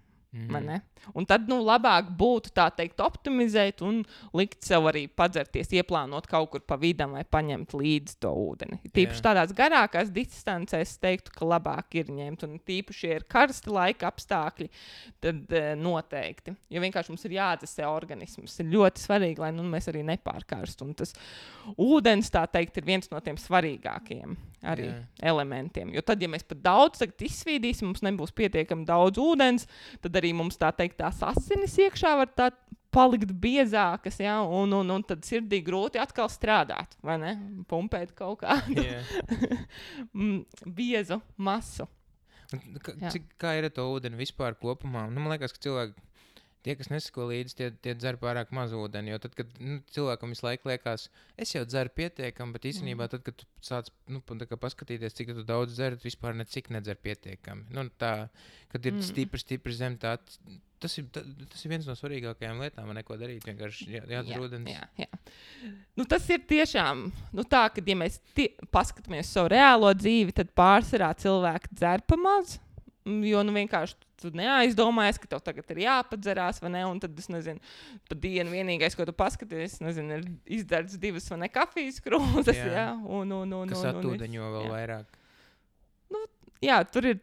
Un tad labāk būtu tā teikt optimizēt un likt sev arī padzerties, ieplānot kaut kur pa vidam vai paņemt līdzi to ūdeni. Tīpaši tādās garākās distancēs es teiktu, ka labāk ir ņemt, un tīpaši, ja ir karsti laika apstākļi, tad noteikti. Jo vienkārši mums ir jāatdzesē organisms. Ir ļoti svarīgi, lai mēs arī nepārkarstu. Un tas ūdens, tā teikt, ir viens no tiem svarīgākajiem arī elementiem. Jo tad, ja mēs pat daudz izsvīdīsim, mums nebūs pietiekami daudz ūdens, tad arī mums tā teikt tās asinis iekšā var tā palikt biezākas, un tad sirdī grūti atkal strādāt, vai ne? Pumpēt kaut kādu biezu masu. Kā ir ar to ūdeni vispār kopumā? Man liekas, ka cilvēki, tie, kas nesako līdzi, tie dzer pārāk maz ūdeni, jo tad, kad cilvēkam visu laiku liekas, es jau dzeru pietiekami, bet īstenībā tad, kad tu sāc paskatīties, cik tu daudz dzer, tu vispār necik nedzer pietiekami. Kad ir stipri zem tā, tas ir viens no svarīgākajām lietām, neko darīt, vienkārši jādzer ūdens. Jā. Tas ir tiešām, tā, kad ja mēs paskatāmies savu reālo dzīvi, tad pārsvarā cilvēki dzer pa maz, jo vienkārši tu neaizdomājies, ka tev tagad ir jāpadzerās, vai ne, un tad, es nezinu, pa dienu vienīgais, ko tu paskaties, ir izdarts 2 kafijas krūzes, kas atūdeņo vēl vairāk. Tur ir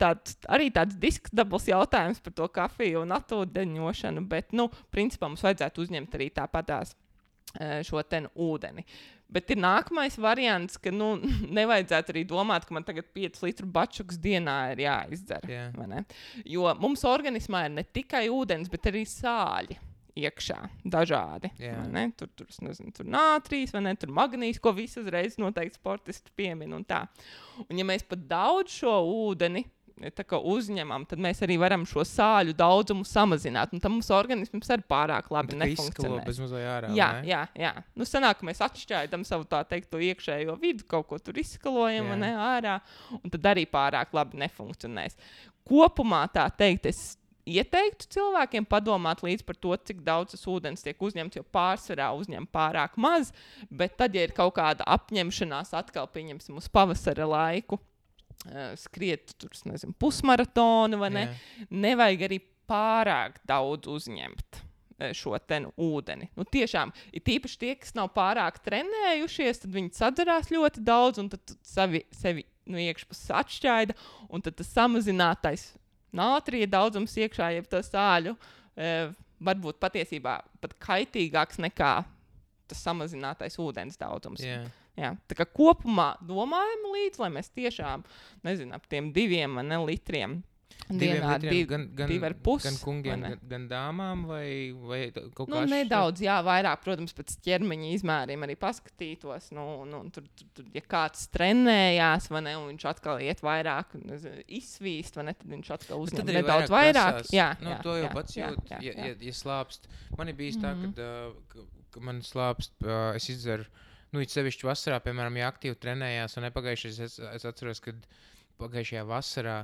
arī tāds diskutabls jautājums par to kafiju un atūdeņošanu, bet, principā mums vajadzētu uzņemt arī tāpatās šo ūdeni. Bet ir nākamais variants, ka nevajadzētu arī domāt, ka man tagad 5 litru bačuks dienā ir jāizdzer. Vai ne? Jo mums organismā ir ne tikai ūdens, bet arī sāļi iekšā dažādi. Tur nātrijas, vai ne? Tur magnīs, ko visi uzreiz noteikti sportisti piemin un tā. Un ja mēs pat daudz šo ūdeni uzņemam, tad mēs arī varam šo sāļu daudzumu samazināt. Un tam mums organisms arī pārāk labi nefunkcionē. Bez mazliet ārā. Jā. Sanāk, ka mēs atšķaidam savu tā teikt to iekšējo vidu, kaut ko tur izskalojam ārā, un tad arī pārāk labi nefunkcionēs. Kopumā tā teikt, es ieteiktu cilvēkiem padomāt līdz par to, cik daudz tas ūdens tiek uzņemts, jo pārsvarā uzņem pārāk maz, bet tad, ja ir kaut kāda apņemšanās atkal pieņemsim uz pavasara laiku, skriet tur, nezinu, pusmaratonu, vai ne? Nevajag arī pārāk daudz uzņemt šo te ūdeni. Nu, tiešām, ir tīpaši tie, kas nav pārāk trenējušies, tad viņi sadzerās ļoti daudz, un tad sevi iekšpus atšķaida, un tad tas samazinātais nātrija daudzums iekšā, jeb to sāļu, varbūt patiesībā pat kaitīgāks nekā tas samazinātais ūdens daudzums. Jā, tā kā kopumā domājam līdz, lai mēs tiešām, nezinu, ap tiem 2 litriem dienā, 2,5. Gan kungiem, gan dāmām, vai kaut kā nedaudz, jā, vairāk, protams, pēc ķermeņa izmēriem arī paskatītos, tur, ja kāds trenējās, vai ne, un viņš atkal iet vairāk, izsvīst, vai ne, tad viņš atkal uzņem nedaudz vairāk. Jā, to jau pats jūt, ja slāpst. Man ir bijis tā, ka man slāpst, es izdzeru, it sevišķi vasarā, piemēram, ja aktīvi trenējās, un nepagājušais, es atceros, kad pagājušajā vasarā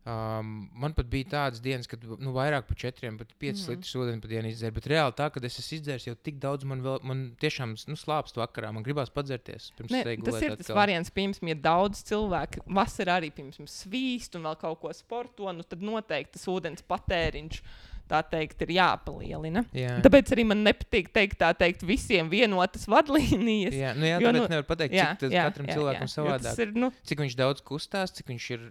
man pat bija tādas dienas, kad vairāk par 4, pat 5 litrus ūdeni pa dienu izdzeru, bet reāli tā, kad es esmu izdzēris jau tik daudz, man tiešām slāpst vakarā, man gribās padzerties. Tas ir tas variants, piemēram, ja daudz cilvēku vasarā arī, piemēram, svīst un vēl kaut ko sporto, tad noteikti tas ūdens patēriņš tā teikt, ir jāpalielina. Jā. Tāpēc arī man nepatīk teikt visiem vienotas vadlīnijas. Jā, tāpēc nevar pateikt, cik katram cilvēkam savādāk. Cik viņš daudz kustās, cik viņš ir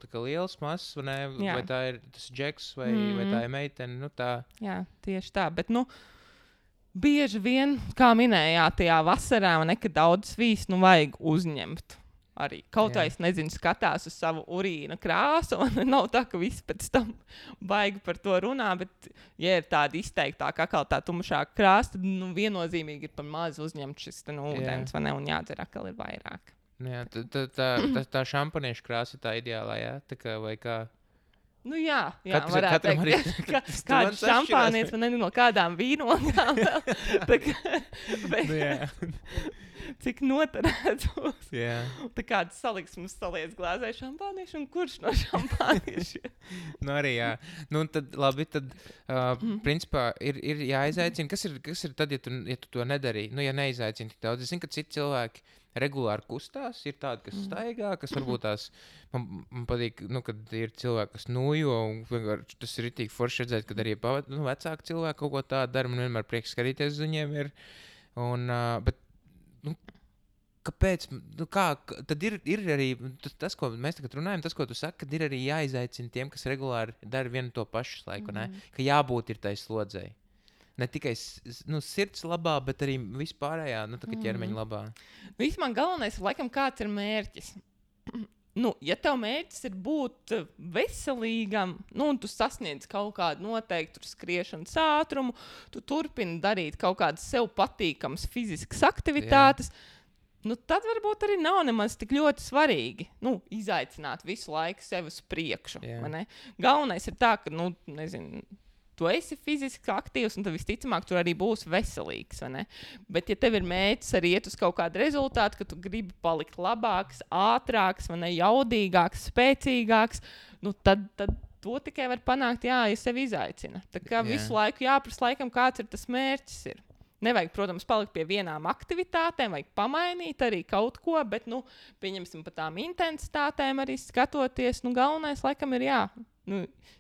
tā kā liels, mazs, vai tā ir tas džeks, vai tā ir meitene. Tā. Jā, tieši tā. Bet, bieži vien, kā minējāt, tajā vasarā, kad daudz svīst, vajag uzņemt. Arī kaut kā es nezinu, skatās uz savu urīna krāsu, un nav tā, ka viss pēc tam baigi par to runā, bet, ja ir tāda izteiktāka, kā tā tumšāka krāsa, tad viennozīmīgi ir par maz uzņemt šis ūdens, vai ne, un jādzer atkal ir vairāk. Jā, tā šampaniešu krāsa ir tā ideālā, jā? Tā kā, vai kā? Jā, varētu teikt, kāds šampānietis, man no kādām vīnogām vēl. Cik noturēts būs. Tā kāds saliksmes saliec glāzē šampāniešu un kurš no šampāniešu? Arī jā. Tad labi, principā ir jāizaicina. Kas ir tad, ja tu to nedarīji? Ja neizaicini tik daudz. Es zinu, ka citi cilvēki regulāri kustās. Ir tādi, kas staigā, kas varbūt tās, man patīk, kad ir cilvēki, kas nojo, un vienkārši tas ir ritīgi forši redzēt, kad arī vecāki cilvēki kaut ko tādu dara. Man vienmēr prieks skatīties uz viņiem ir. Bet kāpēc? Tad ir arī tas, ko mēs tagad runājam, tas, ko tu saki, kad ir arī jāizaicina tiem, kas regulāri dara vienu to pašu laiku, ka jābūt ir tai slodzei. Ne tikai sirds labā, bet arī vispārējā, ķermeņa labā. Vismaz galvenais ir, laikam, kāds ir mērķis. Ja tev mērķis ir būt veselīgam, un tu sasniedz kaut kādu noteiktu skriešanas ātrumu, tu turpini darīt kaut kādas sev patīkamas fiziskas aktivitātes, tad varbūt arī nav nemaz tik ļoti svarīgi izaicināt visu laiku sevi uz priekšu. Galvenais ir tā, ka, nezinu, tu esi fiziski aktīvs, un tad visticamāk tu arī būsi veselīgs. Bet, ja tev ir mērķis arī iet uz kaut kādu rezultātu, ka tu gribi palikt labāks, ātrāks, jaudīgāks, spēcīgāks, tad to tikai var panākt, ja sevi izaicina. Tā kā visu laiku jāprasa laikam, kāds ir tas mērķis. Nevajag, protams, palikt pie vienām aktivitātēm, vajag pamainīt arī kaut ko, bet, pieņemsim par tām intensitātēm arī skatoties, galvenais laikam ir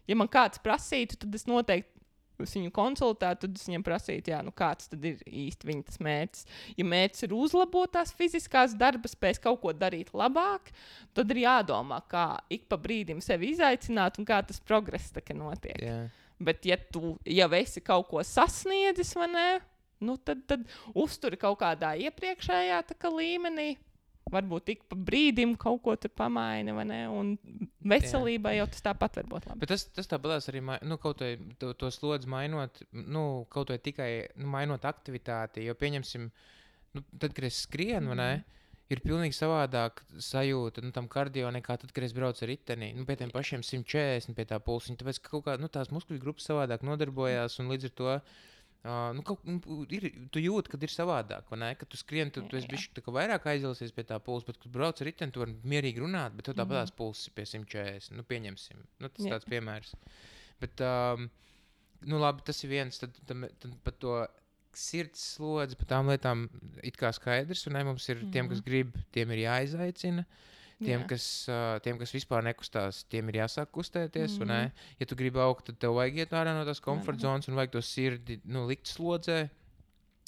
ja man kāds prasītu, tad es noteikti viņu konsultētu, tad es viņam prasītu, kāds tad ir īsti viņa tas mērķis. Ja mērķis ir uzlabot tās fiziskās darba spējas, kaut ko darīt labāk, tad ir jādomā, kā ik pa brīdim sevi izaicināt un kā tas progress notiek. Bet, ja tu jau esi kaut ko sasniedzis, vai ne, tad uzturi kaut kādā iepriekšējā līmenī. Varbūt tik pa brīdim kaut ko tur pamaini, vai ne? Un veselībai jau tas tāpat var būt labi. Bet tas tāpatās arī, kaut vai to slodzi mainot, kaut vai tikai mainot aktivitāti, jo pieņemsim, tad, kad es skrienu, vai ne, ir pilnīgi savādāk sajūta tam kardio nekā tad, kad es braucu ar riteni. Pie tiem pašiem 140, pie tā pulsiņa, tāpēc, ka kaut kā, tās muskuļu grupas savādāk nodarbojās, un līdz ar to tu jūti, kad ir savādāk, vai ne? Kad tu skrieni, tu esi bišķi vairāk aizilsies pie tā pulsa, bet, kad brauc ar riteni, tu vari mierīgi runāt, bet tev tāpatās pulss ir pie 140. Pieņemsim. Tas tāds piemērs. Bet, labi, tas ir viens, tad par to sirds slodzi, par tām lietām it kā skaidrs, un mums ir tiem, kas grib, tiem ir jāizaicina. Tiem, kas vispār nekustās, tiem ir jāsāk kustēties, un ne? Ja tu gribi augt, tad tev vajag iet ārā no tās komforta zonas un vajag to sirdi, likt slodzē.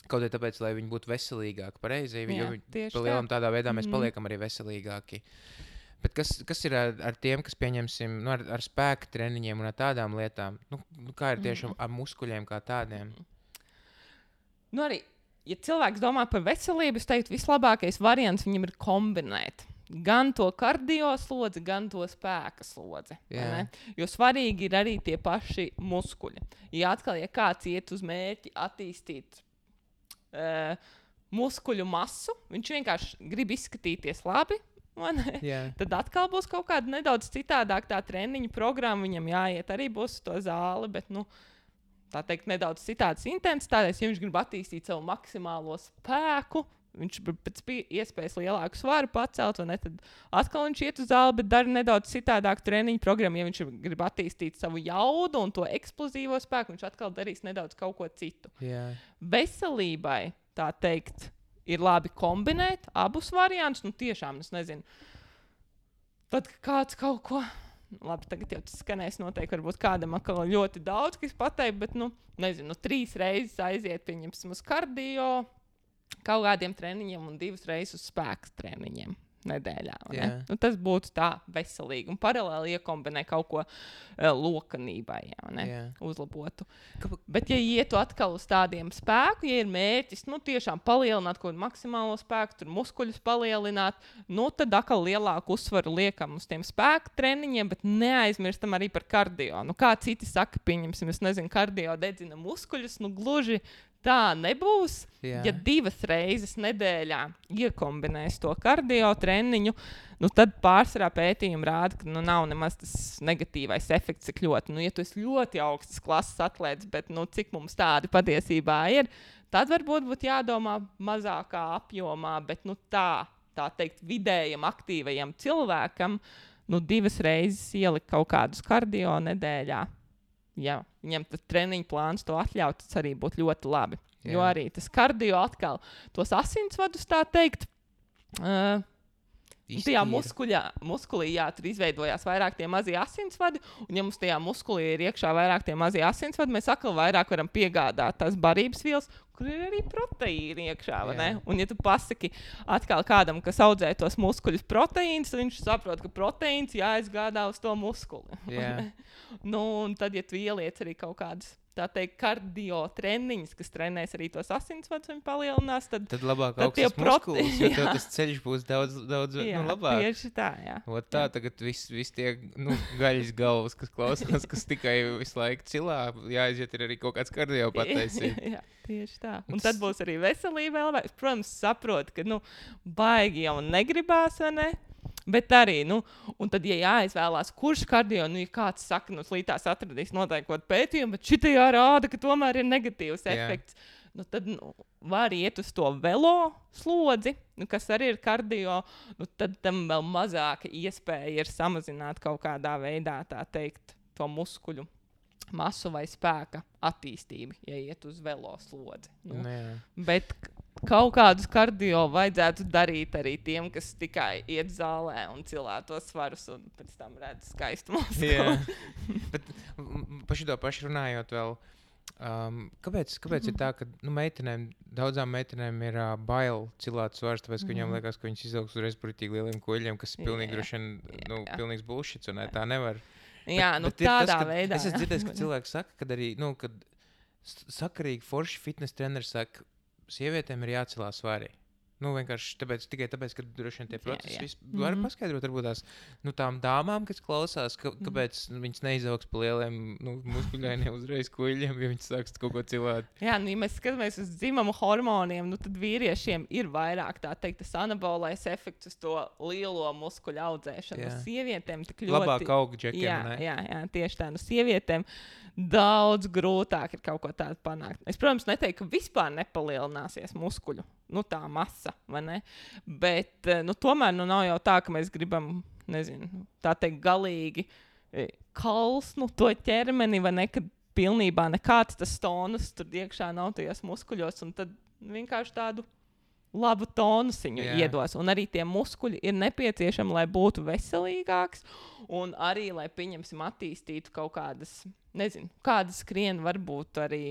Kaut arī tāpēc, lai viņi būtu veselīgāki, pareizi, jo pa lielam tādā veidā mēs paliekam arī veselīgāki. Bet kas ir ar tiem, kas pieņemsim, ar spēka treniņiem un ar tādām lietām? Kā ir tieši ar muskuļiem kā tādiem? Arī, ja cilvēks domā par veselību, es teiktu, vislabākais variants viņam ir kombinēt. Gan to kardio slodzi, gan to spēka slodzi. Jo svarīgi ir arī tie paši muskuļi. Ja kāds iet uz mērķi attīstīt muskuļu masu, viņš vienkārši grib izskatīties labi, tad atkal būs kaut kāda nedaudz citādāk tā treniņa programma. Viņam jāiet arī būs uz to zāli, bet, tā teikt, nedaudz citādas intensitātes. Ja viņš grib attīstīt savu maksimālo spēku, viņš pēc iespējas lielāku svaru pacelt, tad atkal viņš iet uz zāli, bet dara nedaudz citādāk treniņu programmu. Ja viņš grib attīstīt savu jaudu un to eksplozīvo spēku, viņš atkal darīs nedaudz kaut ko citu. Veselībai, tā teikt, ir labi kombinēt abus variantus. Tiešām, es nezinu, tad kāds kaut ko... Labi, tagad jau tas skanēs noteikti, varbūt kādam atkal ļoti daudz, kas pateikt, bet, 3 reizes aiziet, pieņemsim, uz kardio, kaut kādiem treniņiem un 2 reizes uz spēka treniņiem nedēļā. Tas būtu tā veselīgi un paralēli iekombinē kaut ko lokanībai, uzlabotu. Bet, ja ietu atkal uz tādiem spēku, ja ir mērķis, tiešām palielināt kaut kādu maksimālo spēku, tur muskuļus palielināt, tad atkal lielāku uzsvaru liekam uz tiem spēka treniņiem, bet neaizmirstam arī par kardio. Kā citi saka, pieņemsim, es nezinu, kardio dedzina muskuļus, gluži tā nebūs. Ja 2 reizes nedēļā iekombinēs to kardio treniņu, tad pārsvarā pētījumi rāda, ka nav nemaz tas negatīvais efekts tik ļoti. Ja tu esi ļoti augstas klases atlēts, bet cik mums tādi patiesībā ir, tad varbūt būtu jādomā mazākā apjomā, bet tā teikt vidējam aktīvajam cilvēkam 2 reizes ielikt kaut kādus kardio nedēļā. Ja viņam tas treniņu plāns to atļaut, tas arī būtu ļoti labi. Jo arī tas kardio atkal tos asinsvadus, tā teikt, tajā muskulī, tur izveidojās vairāk tie mazie asinsvadi, un ja mums tajā muskulī ir iekšā vairāk tie mazie asinsvadi, mēs atkal vairāk varam piegādāt tās barības vielas, kur ir arī proteīni iekšā, vai ne? Un ja tu pasaki atkal kādam, kas audzē tos muskuļus proteīnus, tad viņš saprot, ka proteīns jāizgādā uz to muskuli. Un tad, ja tu ieliec arī kaut kādus, tā teikt, kardio treniņus, kas trenēs arī tos asinsvadus un palielinās, tad labāk augstas muskulis, jo tev tas ceļš būs daudz labāk. Tieši tā, Tā tagad viss tie gaļas galvas, kas klausās, kas tikai visu laiku cilā, jāaiziet ir arī kaut kāds kardio pataisīt. Tieši tā. Un tad būs arī veselība vēl. Protams, saprot, ka baigi jau negribās, vai ne? Bet arī, un tad, ja jāizvēlās, kurš kardio, ja kāds saka, slītās atradīs noteikti kaut pētījumu, bet šitajā rāda, ka tomēr ir negatīvs efekts, tad var iet uz to velo slodzi, kas arī ir kardio, tad tam vēl mazāka iespēja ir samazināt kaut kādā veidā, tā teikt, to muskuļu masu vai spēka attīstību, ja iet uz velo slodzi. Bet kaut kādus kardio vajadzētu darīt arī tiem, kas tikai iet zālē un cilā tos svarus un pēc tam redz skaistu muskuli. Bet par šito pašu runājot vēl, kāpēc ir tā, ka daudzām meitenēm ir bail cilāt svars, tāpēc, ka viņām liekas, ka viņas izaugs uzreiz pretīgi lieliem koļiem, kas ir pilnīgi droši vien, pilnīgs bullshits, un tā nevar. Bet tādā veidā. Es esmu dzirdējis, ka cilvēki saka, kad arī, kad sakarīgi forši fitness treneri saka, sievietēm ir jācelā svari. Vienkārši tikai tāpēc, ka droši vien tie procesi var paskaidrot, varbūt tās tām dāmām, kas klausās, kāpēc viņas neizaugs pa lieliem muskuļainiem uzreiz kuļiem, ja viņas sāks kaut ko cilāt. Ja mēs skatāmies uz dzimumu hormoniem, tad vīriešiem ir vairāk, tā teikt, tas anabolais efekts uz to lielo muskuļu audzēšanu. Sievietēm tik ļoti... Labāk aug džekiem, ne? Jā, tieši tā. Sievietēm daudz grūtāk ir kaut ko tādu panākt. Es, protams, neteiktu, ka vispār nepalielināsies muskuļu, tā masa, vai ne? Bet, tomēr, nav jau tā, ka mēs gribam, tā teikt, galīgi kalsnu to ķermeni, vai ne, kad pilnībā nekāds tas tonus tur iekšā nav tajos muskuļos, un tad vienkārši tādu labu tonusiņu iedos. Un arī tie muskuļi ir nepieciešami, lai būtu veselīgāks. Un arī, lai pieņemsim, attīstītu kaut kādas, nezinu, kādas skrien varbūt arī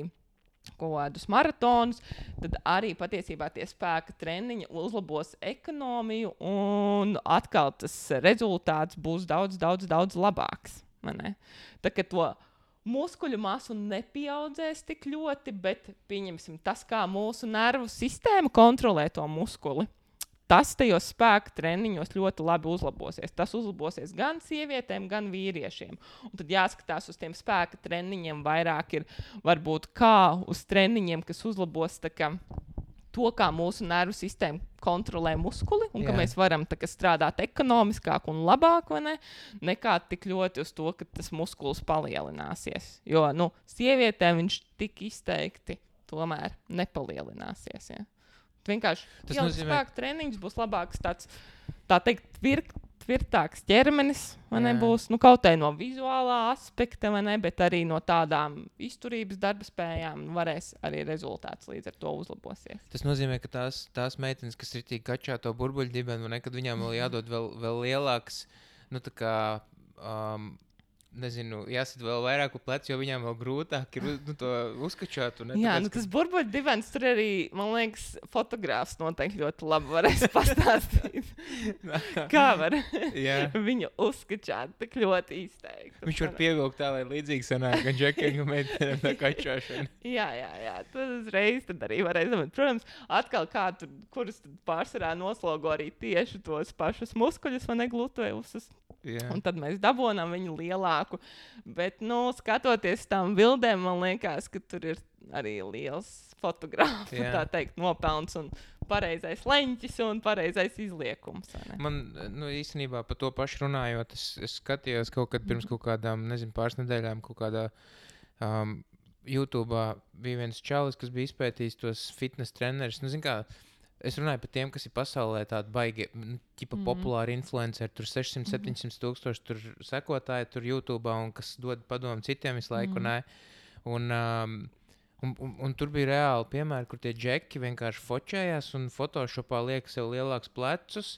kaut kādus maratonus, tad arī patiesībā tie spēka treniņi uzlabos ekonomiju un atkal tas rezultāts būs daudz, daudz, daudz labāks. Tā kā to muskuļu masu nepieaudzēs tik ļoti, bet pieņemsim tas, kā mūsu nervu sistēma kontrolē to muskuli. Tas tajos spēka treniņos ļoti labi uzlabosies. Tas uzlabosies gan sievietēm, gan vīriešiem. Un tad jāskatās uz tiem spēka treniņiem vairāk ir varbūt kā uz treniņiem, kas uzlabos to, kā mūsu nervu sistēma kontrolē muskuli un ka mēs varam strādāt ekonomiskāk un labāk, nekā tik ļoti uz to, ka tas muskulis palielināsies. Jo, sievietēm viņš tik izteikti tomēr nepalielināsies, ja. Vienkārši tas nozīmē, spēka treniņš būs labāks, tā teikt, tvirtāks ķermenis, būs kaut kā no vizuālā aspekta, bet arī no tādām izturības darba spējām varēs arī rezultāts līdz ar to uzlabosies. Tas nozīmē, ka tās meitenes, kas ir tik kačā to burbuļdibenu, kad viņām vēl jādod vēl lielāks, nezinu, jāsit vēl vairāk uz jo viņām vēl grūtāk ir to uzkačāt. Jā, tas burbuļdibens tur arī, man liekas, fotogrāfs noteikti ļoti labi varēs pastāstīt. Kā var viņu uzkačāt tik ļoti izteikti. Viņš var pievilkt tā, lai līdzīgi sanāk, gan džekingu meitenēm tā kačāšana. Jā, tad uzreiz tad arī varēs. Protams, atkal kurus pārsvarā noslogo arī tieši tos pašus muskuļus, gluteus. Un tad mēs dabonām viņu lielāku. Bet, skatoties tām bildēm, man liekas, ka tur ir arī liels fotogrāfu, tā teikt, nopelns un pareizais leņķis un pareizais izliekums. Man, īstenībā par to pašu runājot, es skatījos kaut kad pirms kaut kādām, pāris nedēļām, kaut kādā YouTube'ā bija viens čalis, kas bija izpētījis tos fitness trenerus. Es runāju par tiem, kas ir pasaulē tādi baigi, populāri influenceri, tur 600-700 tūkstoši tur sekotāji tur YouTube'ā un kas dod padomu citiem visu laiku. Un tur bija reāli piemēri, kur tie džeki vienkārši fočējās un Photoshopā liek sev lielāks plecus,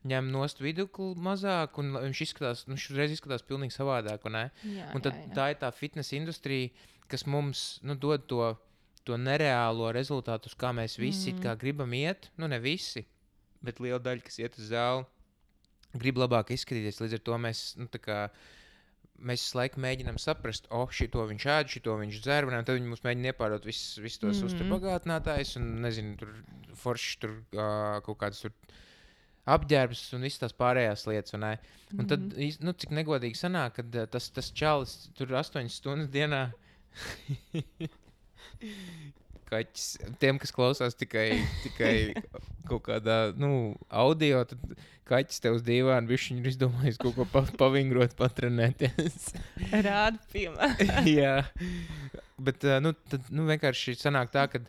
ņem nost vidukli mazāk un viņš reiz izskatās pilnīgi savādāk. Un tad tā ir tā fitness industrija, kas mums dod to nereālo rezultātu, uz kā mēs visi kā gribam iet. Ne visi, bet liela daļa, kas iet uz zāli, grib labāk izskatīties. Līdz ar to mēs visu laiku mēģinām saprast, šito viņš ēd, šito viņš dzer, un tad viņi mums mēģina iepārot visus tos uzturbagātinātājus un, nezinu, tur forši tur kaut kādas tur apģērbs un visas tās pārējās lietas. Un tad, cik negodīgi sanāk, kad tas čalis tur 8 stundas dienā kaķis, tiem, kas klausās tikai kaut kādā, audio, tad kaķis tev uz dīvānu, viņš ir izdomājis kaut ko pavingrot, patrenēties. Rāda piemēru. Jā, bet, tad vienkārši sanāk tā, ka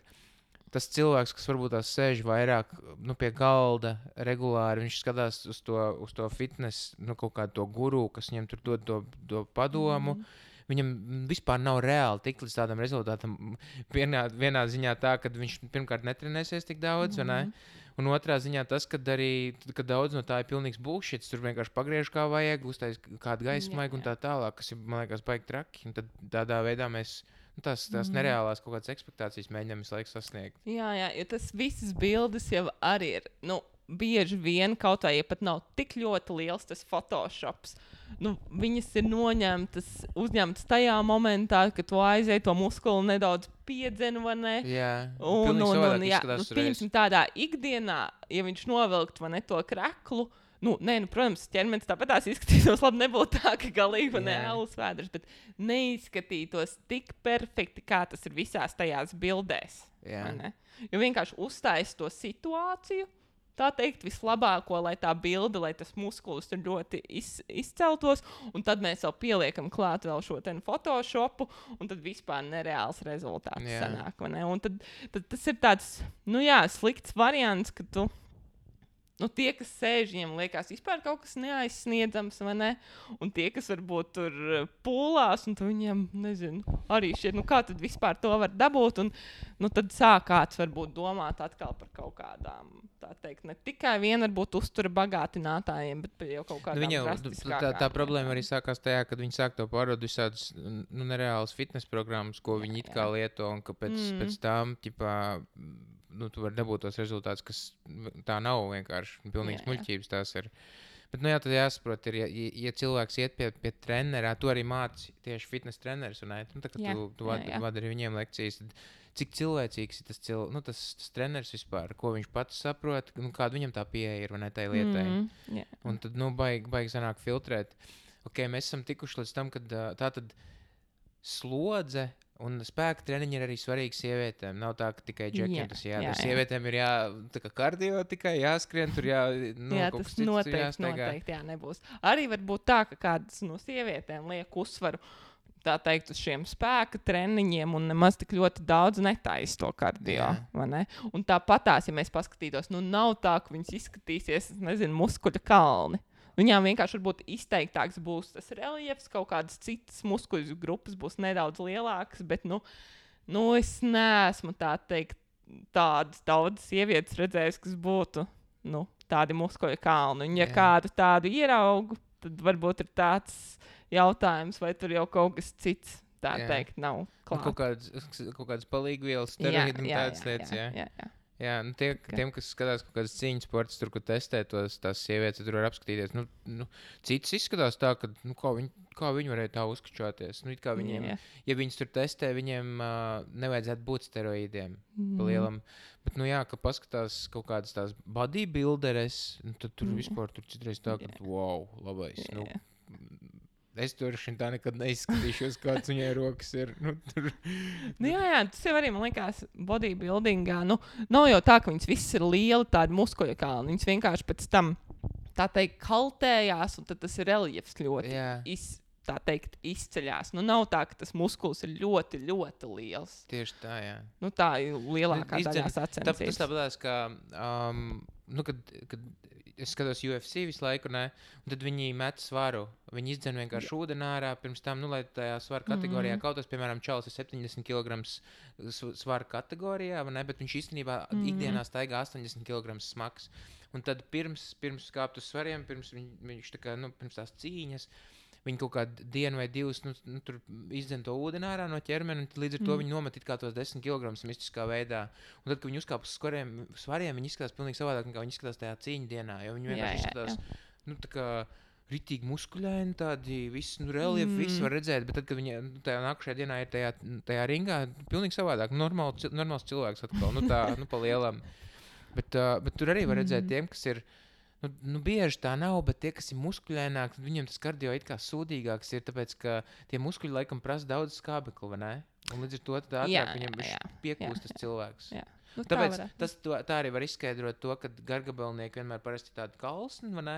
tas cilvēks, kas varbūt tās sēž vairāk, pie galda regulāri, viņš skatās uz to fitness, kaut kādu to guru, kas viņam tur dod to padomu, viņam vispār nav reāli tikt līdz tādam rezultātam. Vienā ziņā tā, ka viņš pirmkārt netrenēsies tik daudz, un otrā ziņā tas, ka daudz no tā ir pilnīgs bullshits, tur vienkārši pagriež kā vajag, uztais kādu gaismaigu un tā tālāk, kas ir, man liekas, baigi traki. Un tad tādā veidā mēs tās nereālās kaut kādas ekspektācijas mēģinām visu laiku sasniegt. Jā, jo tas visas bildes jau arī ir, bieži vien kaut vai, ja pat nav tik ļoti liels tas Photoshops, viņas ir uzņemtas tajā momentā, kad tu aizēji to muskuli nedaudz piedzenu, vai ne? Jā, pieņemsim tādā ikdienā, ja viņš novilkt, vai ne, to kreklu, protams, ķermenis tāpatās izskatītos labi, nebūtu tā, ka galīgi alus vēders, bet neizskatītos tik perfekti, kā tas ir visās tajās bildēs. Jo vienkārši uzstājas to situāciju, tā teikt, vislabāko, lai tā bilde, lai tas muskulis tur ļoti izceltos, un tad mēs vēl pieliekam klāt vēl šo Photoshopu, un tad vispār nereāls rezultāts sanāk, vai ne? Un tad tas ir tāds, slikts variants, ka tu tie, kas sēž, viņiem liekas vispār kaut kas neaizsniedzams, vai ne? Un tie, kas varbūt tur pūlās, un viņiem, nezinu, arī šķiet, kā tad vispār to var dabūt, un tad sāk kāds varbūt domāt atkal par kaut kādām, tā teikt, ne tikai vien varbūt uztura bagātinātājiem, bet jau kaut kādām drastiskākām. Tā problēma arī sākās tajā, kad viņi sāk to pārdot visādas nereālas fitness programmas, ko viņi it kā lieto, un ka pēc tām, tu vari dabūt tos rezultātus, kas tā nav vienkārši pilnīgs muļķības tās ir. Bet, tad jāsaprot, ja cilvēks iet pie trenerā, tu arī māci tieši fitness treneris, un tu vadi arī viņiem lekcijas, tad cik cilvēcīgs ir tas treneris vispār, ko viņš pats saprot, kāda viņam tā pieeja ir, vai ne, tai lietai. Un tad, baigi sanāk filtrēt. Mēs esam tikuši līdz tam, kad tā tad slodze un spēka treniņi ir arī svarīgi sievietēm. Nav tā, ka tikai džekiem tas jādara. Sievietēm ir kardio tikai jāskrien, tur kaut kas cits noteikti nebūs. Arī var būt tā, ka kādas no sievietēm liek uzsvaru, tā teikt, uz šiem spēka treniņiem un nemaz tik ļoti daudz netaisa to kardio, vai ne? Un tāpatās, ja mēs paskatītos, nav tā, ka viņas izskatīsies, muskuļa kalni. Viņām vienkārši varbūt izteiktāks būs tas reliefs, kaut kādas citas muskuļu grupas būs nedaudz lielākas, bet, es neesmu tā teikt tādas daudzas sievietes redzējis, kas būtu, tādi muskuļu kalni. Un ja kādu tādu ieraugu, tad varbūt ir tāds jautājums, vai tur jau kaut kas cits, tā teikt, nav klāt. Kaut kādas palīgvielas, steroīdi un tādas lietas, Jā, tiem, kas skatās kaut kādas cīņas sports, tur, kur testē tās sievietes, tur var apskatīties. Citas izskatās tā, ka, kā viņi varēja tā uzkačāties. Kā viņiem, ja viņas tur testē, viņiem nevajadzētu būt steroīdiem pa lielam. Bet, ka paskatās kaut kādas tās bodybuilderes, tad tur vispār tur citreiz tā, ka, wow, labais. Es tur tā nekad neizskatīšos, kāds viņai rokas ir. Tas jau arī, man liekas, bodybuildingā. Nav jau tā, ka viņas visas ir lieli, tādi muskuļu kalni. Viņas vienkārši pēc tam, tā teikt, kaltējās, un tad tas reliefs ļoti izceļās. Nav tā, ka tas muskulis ir ļoti, ļoti liels. Tieši tā, jā. Tā ir lielākā daļā sacensības. Tas tāpēc, ka, kad es skatos UFC visu laiku, un tad viņi met svaru. Viņi izdzen vienkārši ūdeni ārā pirms tam, lai tajā svaru kategorijā kautos, piemēram, čalis ir 70 kg svaru kategorijā, bet viņš īstenībā ikdienā staigā 80 kg smags. Un tad pirms kāpt uz svariem, pirms viņš pirms tās cīņas, viņi kaut kādu dienu vai divas tur izdzen to ūdeni ārā no ķermeni, un līdz ar to viņi nomet it kā tos 10 kg mistiskā veidā. Un tad, kad viņi uzkāp uz svariem, viņi izskatās pilnīgi savādāk, nekā viņi izskatās tajā cīņu dienā, jo viņi vienkārši izskatās, tā kā ritīgi muskuļaini, tādi visi, reliefi, visi var redzēt, bet tad, kad viņi tajā nākušajā dienā ir tajā ringā, pilnīgi savādāk, normāls cilvēks atkal, pa lielam. Bet tur arī var redzēt tiem, kas ir, bieži tā nav, bet tie, kas ir muskuļaināki, viņiem tas kardio it kā sūdīgāks ir, tāpēc, ka tie muskuļi laikam prasa daudz skābekli, vai ne? Un līdz ar to tad ātrāk viņam piekūst tas cilvēks. Tāpēc tā arī var izskaidrot to, ka gargabelnieki vienmēr parasti tādi kalsni, vai ne?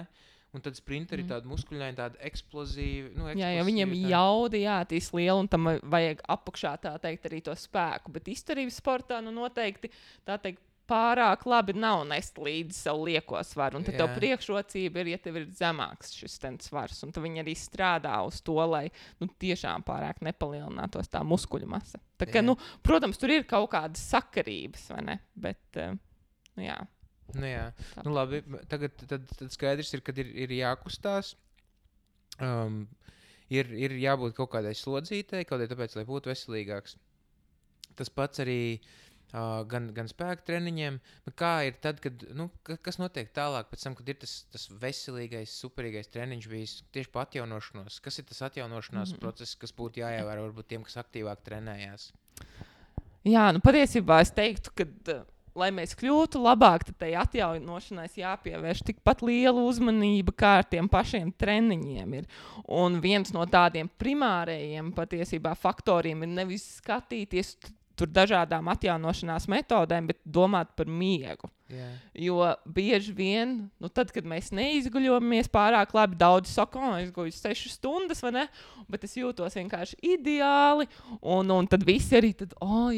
Un tad sprinteri tādi muskuļaini, tādi eksplozīvi. Jo viņiem jaudi jātīst liela, un tam vajag apakšā, tā teikt, arī to spēku. Bet izturības sportā, noteikti, tā teikt, pārāk labi nav nest līdzi savu lieko svaru. Un tad tev priekšrocība ir, ja tev ir zemāks šis svars. Un tad viņi arī strādā uz to, lai tiešām pārāk nepalielinātos tā muskuļu masa. Tā kā, protams, tur ir kaut kādas sakarības, vai ne? Bet, jā. Labi. Tagad tad skaidrs ir, kad ir jākustās. Ir jābūt kaut kādai slodzītei, kaut kādai tāpēc, lai būtu veselīgāks. Tas pats arī gan spēka treniņiem, bet kā ir tad, kad, kas notiek tālāk pēc tam, kad ir tas veselīgais, superīgais treniņš bijis tieši pa atjaunošanos? Kas ir tas atjaunošanās process, kas būtu jāievēro varbūt tiem, kas aktīvāk trenējās? Jā, patiesībā es teiktu, ka, lai mēs kļūtu labāk, tad tai atjaunošanai jāpievērš tikpat liela uzmanība, kā ar tiem pašiem treniņiem ir. Un viens no tādiem primārējiem patiesībā faktoriem ir nevis skatīties tur dažādām atjaunošanās metodēm, bet domāt par miegu. Jo bieži vien, tad, kad mēs neizguļojamies pārāk labi, daudzi saka, es guļu 6 stundas, vai ne? Bet es jūtos vienkārši ideāli, un tad visi arī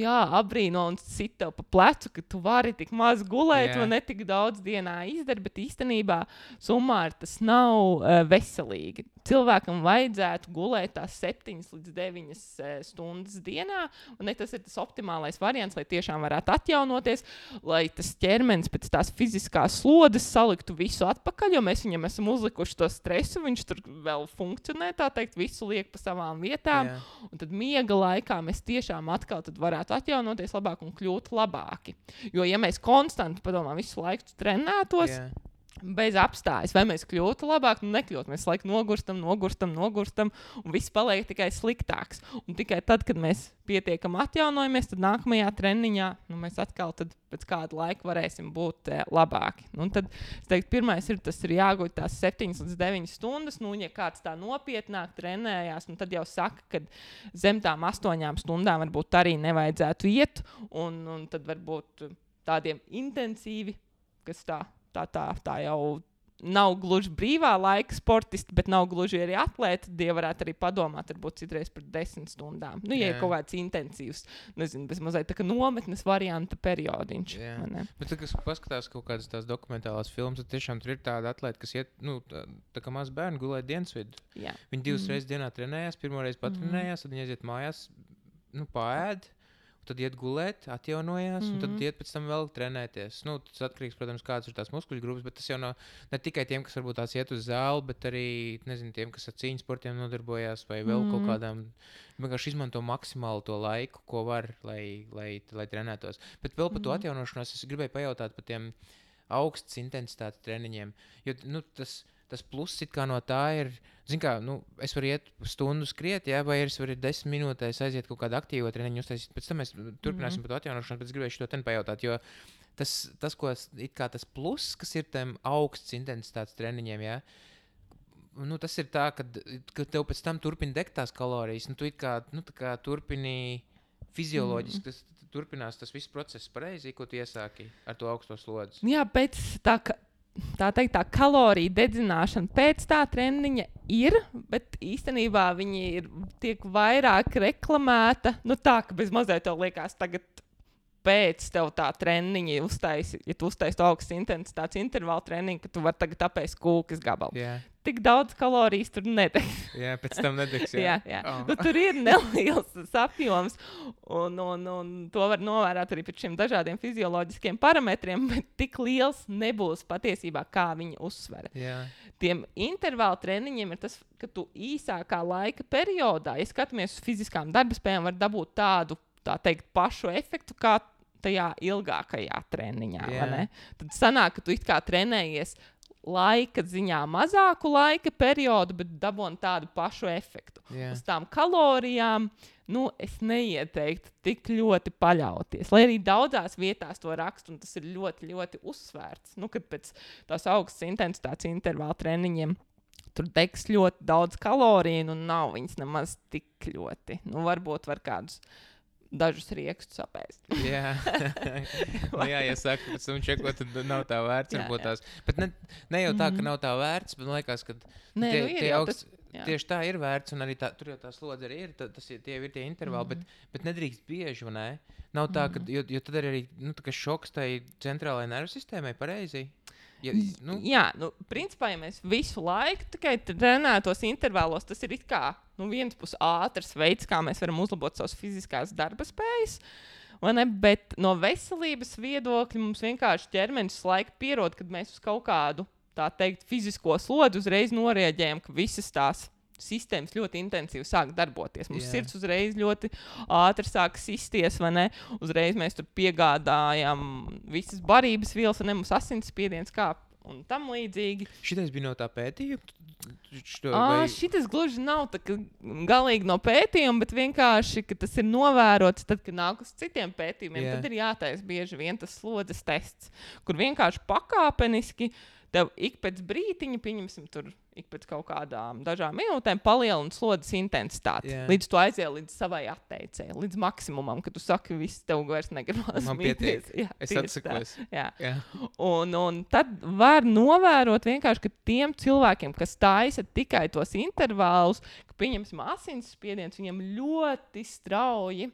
abrīno un sit tev pa plecu, ka tu vari tik maz gulēt, vai ne tik daudz dienā izdara, bet īstenībā summāri tas nav veselīgi. Cilvēkam vajadzētu gulēt tās 7 līdz 9 stundas dienā, un tas ir tas optimālais variants, lai tiešām varētu atjaunoties, lai tas ķermenis pēc tās fiziskās slodes saliktu visu atpakaļ, jo mēs viņam esam uzlikuši to stresu, viņš tur vēl funkcionē, tā teikt, visu liek pa savām vietām, un tad miega laikā mēs tiešām atkal tad varētu atjaunoties labāk un kļūt labāki. Jo, ja mēs konstanti, padomā, visu laiku trenētos, bez apstājas, vai mēs kļūtu labāk, nekļūt. Mēs laiku nogurstam, un viss paliek tikai sliktāks. Un tikai tad, kad mēs pietiekam atjaunojamies, tad nākamajā treniņā mēs atkal tad pēc kāda laika varēsim būt labāki. Un tad, es teiktu, pirmais tas ir jāguļ tās 7 līdz 9 stundas. Ja kāds tā nopietnāk trenējās, tad jau saka, ka zem tām 8 stundām varbūt arī nevajadzētu iet, un tad varbūt tādiem intensīvi, kas tā jau nav gluži brīvā laika sportisti, bet nav gluži arī atlēti. Tie varētu arī padomāt, varbūt citreiz par 10 stundām. Ja ir kaut kāds intensīvs, nezinu, bez mazliet tā kā nometnes varianta periodiņš. Bet tad, kas paskatās kaut kādas tās dokumentālās filmas, tad tiešām tur ir tāda atlēta, kas iet, tā kā maz bērni gulēt dienas vidu. Viņi 2 reizes dienā trenējās, pirmoreiz patrenējās, tad viņi aiziet mājās, paēd. Tad iet gulēt, atjaunojās, un tad iet pēc tam vēl trenēties. Tas atkarīgs, protams, kādas ir tās muskuļu grupas, bet tas jau nav ne tikai tiem, kas varbūt tās iet uz zāli, bet arī, nezinu, tiem, kas ar cīņas sportiem nodarbojās, vai vēl kaut kādām, vienkārši izmanto maksimāli to laiku, ko var, lai trenētos. Bet vēl par to atjaunošanos es gribēju pajautāt par tiem augstas intensitātes treniņiem, jo, tas pluss it kā no tā ir, es varu iet stundu skriet, vai es varu 10 minūtēs aiziet kaut kādu aktīvo treniņu uztaisīt. Pēc tam mēs turpināsim par to atjaunošanu, bet es gribēju šo ten pajautāt, jo tas, ko it kā tas pluss, kas ir tiem augstas intensitātes treniņiem, tas ir tā, ka tev pēc tam turpina degt tās kalorijas, tu it kā, tā kā turpini fizioloģiski, turpinās tas viss process pareizi, ko tu iesāki ar to augsto slodzi. Jā, pēc tā teikt, tā kaloriju dedzināšana pēc tā treniņa ir, bet īstenībā viņi tiek vairāk reklamēta. Tā, ka bez mazliet tev liekas tagad pēc tev tā treniņa ja tu uztaisi to augstas intensitātes intervālu treniņu, ka tu vari tagad apēst kūkas gabalu. Tik daudz kalorijas tur nedegs. Pēc tam nedegs, jā. Tur ir neliels apjoms, un to var novērot arī pēc šiem dažādiem fizioloģiskiem parametriem, bet tik liels nebūs patiesībā, kā viņi uzsver. Tiem intervālu treniņiem ir tas, ka tu īsākā laika periodā, ja skatāmies uz fiziskām darbaspējām, var dabūt tādu, tā teikt, pašu efektu, kā tajā ilgākajā treniņā. Tad sanāk, ka tu it kā trenējies laika ziņā mazāku laika periodu, bet dabūn tādu pašu efektu. Uz tām kalorijām, es neieteiktu tik ļoti paļauties. Lai arī daudzās vietās to rakstu, un tas ir ļoti, ļoti uzsvērts. Kad pēc tās augstas intensitātes intervāla treniņiem tur degs ļoti daudz kaloriju, un nav viņas nemaz tik ļoti. Varbūt var kādus dažus riekstus apēst. Ja saka, pēc tam čekot, tad nav tā vērts. Bet ne jau tā, ka nav tā vērts, bet man liekas, ka tieši tā ir vērts, un arī tur jau tā slodze arī ir, tie ir tie intervāli, bet nedrīkst bieži, vai ne? Nav tā, jo tad arī šoks tai centrālajai nervu sistēmai pareizi. Principā, ja mēs visu laiku tikai trenētos intervālos, tas ir it kā viens pus ātrs veids, kā mēs varam uzlabot savas fiziskās darba spējas, bet no veselības viedokļa mums vienkārši ķermenis laiku pierod, kad mēs uz kaut kādu, tā teikt, fizisko slodzi uzreiz norēģējam, ka visas tās sistēmas ļoti intensīvi sāk darboties. Mums sirds uzreiz ļoti ātri sāk sisties, vai ne? Uzreiz mēs tur piegādājam visas barības vielas, un mums asinsspiediens kāp un tam līdzīgi. Šitais bija no tā pētījuma? Šitas gluži nav tā, galīgi no pētījuma, bet vienkārši, ka tas ir novērots, tad, kad nāk uz citiem pētījumiem, tad ir jātaisa bieži vien tas slodzes tests, kur vienkārši pakāpeniski tev ik pēc brītiņa, pieņemsim tur, ik pēc kaut kādām dažām minūtēm palielina slodzes intensitāti. Līdz tu aizies līdz savai atteicēji, līdz maksimumam, kad tu saki, viss tev vairs negribas. Man pietiek. Es atsakos. Jā. Un tad var novērot vienkārši, ka tiem cilvēkiem, kas taisa tikai tos intervālus, ka pieņemsim asinsspiediens, viņam ļoti strauji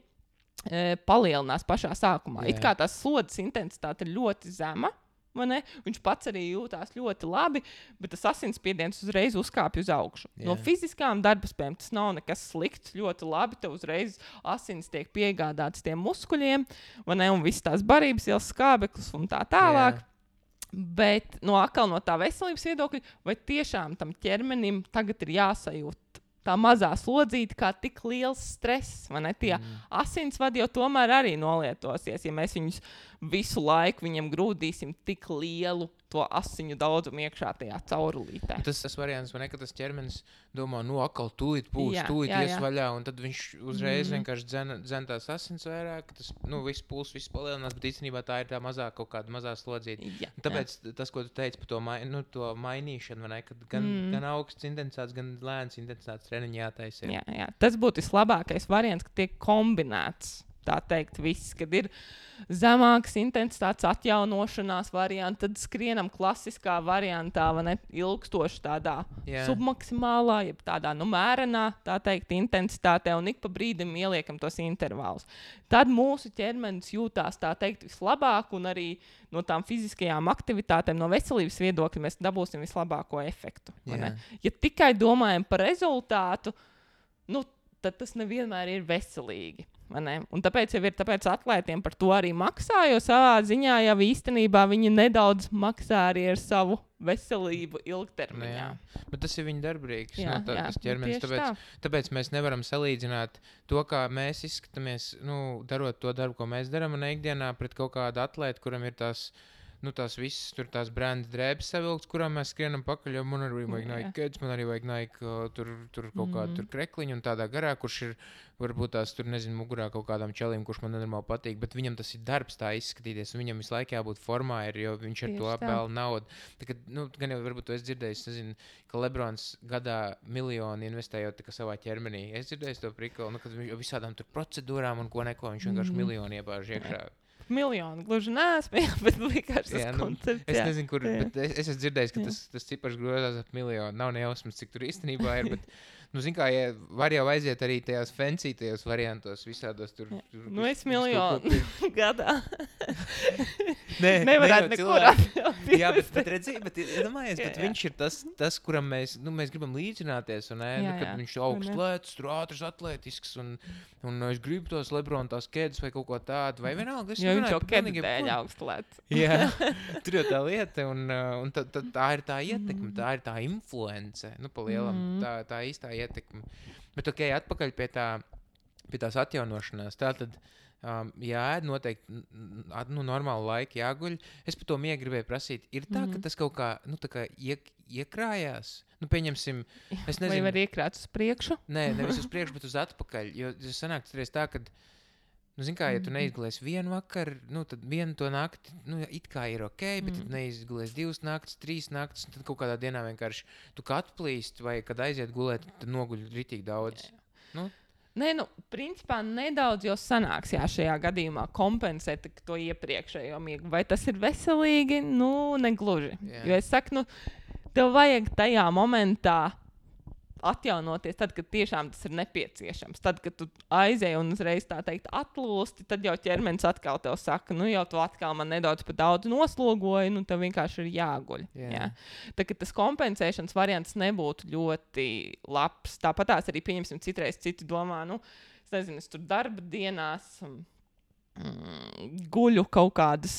palielinās pašā sākumā. It kā tās slodzes intensitāte ir ļoti zema. Viņš pats arī jūtās ļoti labi, bet tas asinsspiediens uzreiz uzkāpj uz augšu. No fiziskām darbaspējām tas nav nekas slikts, ļoti labi. Tev uzreiz asins tiek piegādāts tiem muskuļiem, un viss tās barības ielas skābeklis un tā tālāk. Bet atkal no tā veselības viedokļa, vai tiešām tam ķermenim tagad ir jāsajūt tā mazā slodzīte kā tik liels stress, Tie asinsvadi jau tomēr arī nolietosies, ja mēs viņus visu laiku viņam grūdīsim tik lielu to asiņu daudzumu iekšā tajā caurulītē. Tas variants, ka tas ķermenis domā, atkal tūlīt ies vaļā, un tad viņš uzreiz vienkārši dzen tās asins vairāk, ka tas, viss puls, viss palielinās, bet īstenībā tā ir tā kaut kāda mazā slodzīte. Tāpēc tas, ko tu teici par to mainīšanu, kad gan augsts intensitātes, gan lēns intensitātes treniņi jātaisa. Jā. Tas būtu vislabākais variants, ka tiek kombinēts. Tā teikt, viss, kad ir zemākas intensitātes atjaunošanās varianti, tad skrienam klasiskā variantā, ilgstoši tādā submaksimālā, jeb tādā mērenā, tā teikt, intensitātē, un ik pa brīdim ieliekam tos intervālus. Tad mūsu ķermenis jūtās, tā teikt, vislabāk, un arī no tām fiziskajām aktivitātēm, no veselības viedokļa mēs dabūsim vislabāko efektu. Ja tikai domājam par rezultātu, tad tas nevienmēr ir veselīgi. Un tāpēc jau ir atlētiem par to arī maksā, jo savā ziņā jau īstenībā viņi nedaudz maksā arī ar savu veselību ilgtermiņā. Bet tas ir viņa darbrīgs, tas ķermenis. Tāpēc mēs nevaram salīdzināt to, kā mēs izskatāmies, darot to darbu, ko mēs darām ikdienā pret kaut kādu atlētu, kuram ir tās visas tur tās branda drēbes savilkts, kurām mēs skrienam pakaļ, jo man arī vajag Nike Kids, man arī vajag Nike tur kaut kādu krekliņu un tādā garā, kurš ir varbūt tās tur, mugurā kaut kādām čelīm, kurš man nenormāli patīk, bet viņam tas ir darbs tā izskatīties, un viņam visu laiku jābūt formā, jo viņš ar to apēl naudu. Gan jau varbūt tu esi dzirdējis, ka Lebrons gadā miljoni investējot savā ķermenī. Es dzirdēju to prikolu, kad visādām tur procedūrām un ko viņš vienkārši miljoni iebāž iekšā. Miljonu gluži neesmu, bet vienkārši tas koncepts. Es nezinu, kur, bet es esmu dzirdējis, ka tas cipars grozās ap miljonu. Nav nejausmas, cik tur īstenībā ir, bet, var jau aiziet arī tajās fancytajos variantos, visādos tur. Es miljonu gadā. Nevarētu nekur atļaut. Jā, bet redziet, iedomājies, bet viņš ir tas, kuram mēs gribam līdzināties, kad viņš augsts, ātrs, atletisks, un es gribu tos Lebrona tās kēdes vai kaut ko tādu, vai vienalga. Jo viņš jau kēdes dēļ augstlēts. Jā, tur jau tā lieta, un tā ir tā ietekme, tā ir tā influence, pa lielam, tā īstā ietekme. Bet atpakaļ pie tās atjaunošanās, tātad jāēd noteikti normālu laiku jāguļ. Es par to miegu gribēju prasīt. Ir tā, ka tas kaut kā, tā kā iekrājās? Pieņemsim, es nezinu. Vai var iekrāt uz priekšu? Nē, nevis uz priekšu, bet uz atpakaļ. Jo sanāk tā, kad, ja tu neizgulēsi vienu vakaru, tad vienu to nakti, it kā ir ok, bet tad neizgulēsi 2 naktis, 3 naktis, un tad kaut kādā dienā vienkārši tu kā atplīst, vai kad aiziet gulēt, tad noguļ ritīgi daudz. Nē, principā nedaudz jau sanāks šajā gadījumā kompensēt to iepriekšējo miegu. Vai tas ir veselīgi? Negluži. Jo es saku, tev vajag tajā momentā atjaunoties tad, kad tiešām tas ir nepieciešams. Tad, kad tu aizēji un uzreiz tā teikt atlūsti, tad jau ķermenis atkal tev saka, jau tu atkal man nedaudz par daudz noslogoji, tev vienkārši ir jāguļ. Jā. Tā, ka tas kompensēšanas variants nebūtu ļoti labs. Tāpatās arī pieņemsim citreiz citi domā, es tur darba dienās guļu kaut kādas,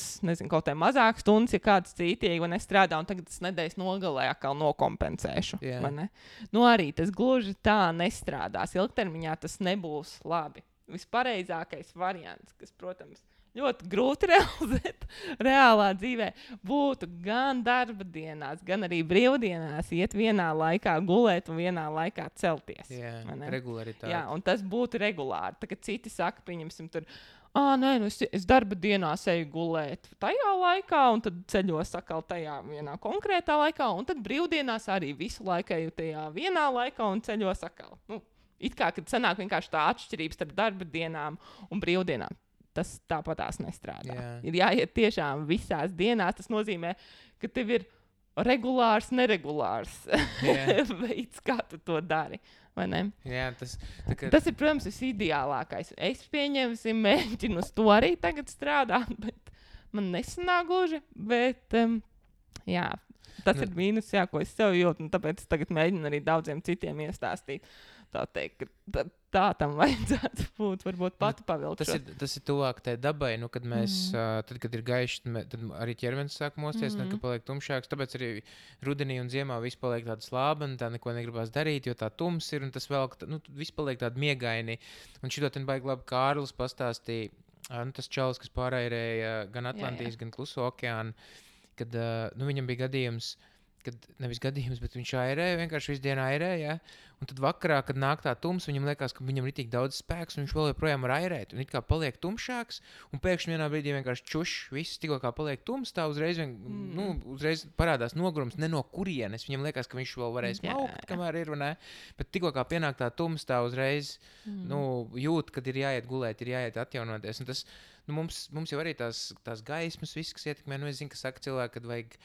kaut kā mazākas stundas, ja kāds cītīgi un es strādāju, un tagad tas nedēļas nogalē atkal nokompensēšu. Arī tas gluži tā nestrādās. Ilgtermiņā tas nebūs labi. Vispareizākais variants, kas, protams, ļoti grūti realizēt reālā dzīvē, būtu gan darba dienās, gan arī brīvdienās iet vienā laikā gulēt un vienā laikā celties. Regularitāte. Jā, un tas būtu regulāri. Tā kā citi saka, pieņemsim tur, nē, es darba dienās eju gulēt tajā laikā, un tad ceļos atkal tajā vienā konkrētā laikā, un tad brīvdienās arī visu laiku eju tajā vienā laikā un ceļos atkal. It kā, kad sanāk vienkārši tā atšķirības starp darba dienām un brīvdienām. Tas tāpatās nestrādā. Jā. Ir jāiet tiešām visās dienās. Tas nozīmē, ka tev ir regulārs, neregulārs veids, kā tu to dari. Vai ne? Jā, tas ir, protams, visideālākais. Es mēģinu uz to arī tagad strādāt, bet man nesanāk gluži. Bet, jā, tas ir mīnus, jā, ko es sev jūtu. Tāpēc es tagad mēģinu arī daudziem citiem iestāstīt. Tā teikt, ka tā tam vajadzētu būt, varbūt pati pavilkšot. Tas ir tuvāk tai dabai, kad mēs, tad, kad ir gaišs, tad arī ķermenis sāk mosties, tad, kad paliek tumšāks, tāpēc arī rudenī un ziemā viss paliek tāda slābana, tā neko negribās darīt, jo tā tums ir, un tas vēl, viss paliek tādi miegaini. Un šito ten baigi labi Kārlis pastāstīja, tas čalis, kas pārairēja gan Atlantijas, gan Kluso okeānu, kad viņam bija gadījums, nevis gadījums, bet viņš airēja, vienkārši visu dienu airēja, un tad vakarā, kad nāk tā tums, viņam liekas, ka viņam ir tik daudz spēks, un viņš vēl joprojām var airēt, un it kā paliek tumšāks, un pēkšņi vienā brīdī vienkārši viss tikko kā paliek tums, tā uzreiz parādās nogurums, ne no kurienes, viņam liekas, ka viņš vēl varēs maukt, kamēr ir, ne, bet tikko kā pienāk tā tums, tā uzreiz, jūt, kad ir jāiet gulēt, ir jāiet atjaunoties, un tas, mums jau arī tās gaismas, viss, kas ietekmē, es zinu, ka saka cilvēki, kad vajag,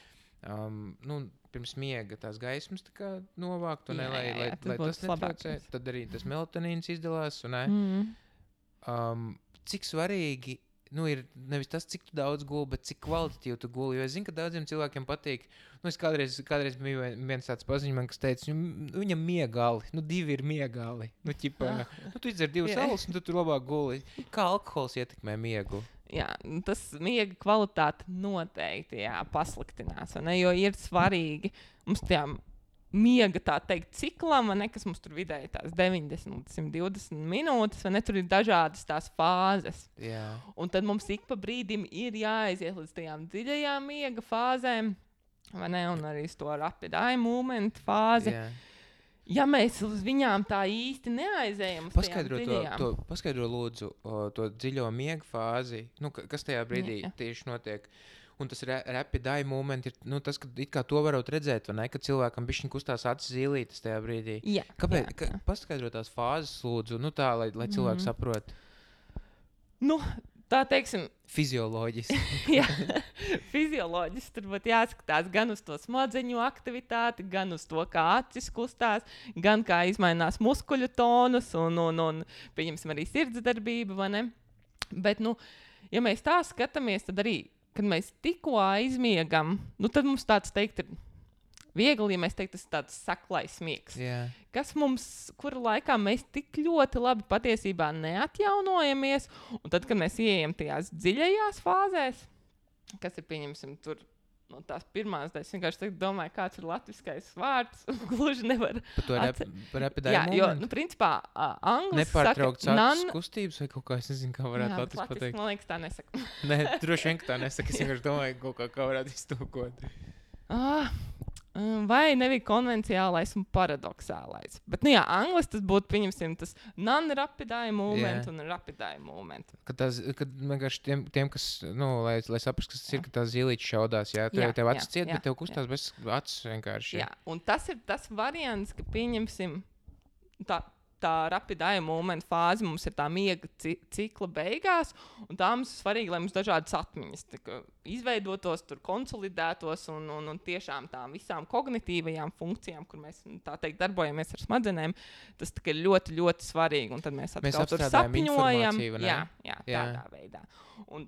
pirms miega tās gaismas tā kā novākt, un lai tas netraucē, tad arī tas melatonīns izdalās, un cik svarīgi, ir nevis tas, cik tu daudz guli, bet cik kvalitatīvi tu guli, jo es zinu, ka daudziem cilvēkiem patīk, es kādreiz bija viens tāds paziņš man, kas teica, viņam miegali, 2 ir miegali, tu izdzer 2 alus, un tu tur labāk guli, kā alkohols ietekmē miegu? Jā, tas miega kvalitāte noteikti pasliktinās, jo ir svarīgi mums tajā miega, tā teikt, ciklam, kas mums tur vidēji tās 90 līdz 120 minūtes, tur ir dažādas tās fāzes. Jā. Un tad mums ik pa brīdim ir jāaiziet līdz tajām dziļajām miega fāzēm, un arī to rapid eye movement fāzi. Jā. Ja mēs uz viņām tā īsti neaizējam, paskaidro lūdzu to dziļo miega fāzi, kas tajā brīdī tieši notiek. Un tas rapid eye movement ir tas, ka it kā to varot redzēt, vai ne, ka cilvēkam bišķiņ kustās acis zīlītes tajā brīdī. Jā. Kāpēc? Paskaidro tās fāzes lūdzu, tā, lai cilvēki saprot. Tā teiksim, fizioloģiski. Jā, fizioloģiski tur būtu jāskatās gan uz to smadzeņu aktivitāti, gan uz to, kā acis kustās, gan kā izmainās muskuļu tonus un pieņemsim arī sirdsdarbība, vai ne? Bet, ja mēs tā skatāmies, tad arī, kad mēs tikko aizmiegam, tad mums tāds teikt ir viegli, ja mēs teiktu, tas ir tāds saklais miegs. Yeah. Kas mums, kura laikā mēs tik ļoti labi patiesībā neatjaunojamies, un tad, kad mēs ieejam tajās dziļajās fāzēs, kas ir, pieņemsim, tur, tās pirmās daļas, vienkārši domāju, kāds ir latviskais vārds, gluži nevar. Par rapid eye moment? Jo, principā, anglis nepārtraukts acis kustības vai kaut kā, es nezinu, kā varētu latviski pateikt. Man liekas, tā nesaka. Nē, droši vien, ka tā nesaka, es vienkārši domāju, kaut kā varētu iztūkot. Vai nebija konvenciālais un paradoxālais. Bet, anglis tas būtu, pieņemsim, tas non-rapid eye movement un rapid eye movement. Kad vienkārši tiem kas, lai saprast, kas tas ir, ka tās zīlītes šaudās, tev acis ciet, bet tev kustās bez acis vienkārši. Jā, un tas ir tas variants, ka pieņemsim tā rapid eye movement fāze mums ir tā miega cikla beigās, un tā mums ir svarīgi, lai mums dažādas atmiņas izveidotos, tur konsolidētos un tiešām tām visām kognitīvajām funkcijām, kur mēs, tā teikt, darbojamies ar smadzenēm, tas ir ļoti, ļoti svarīgi, un tad mēs atkal tur sapņojam. Jā, tādā veidā. Un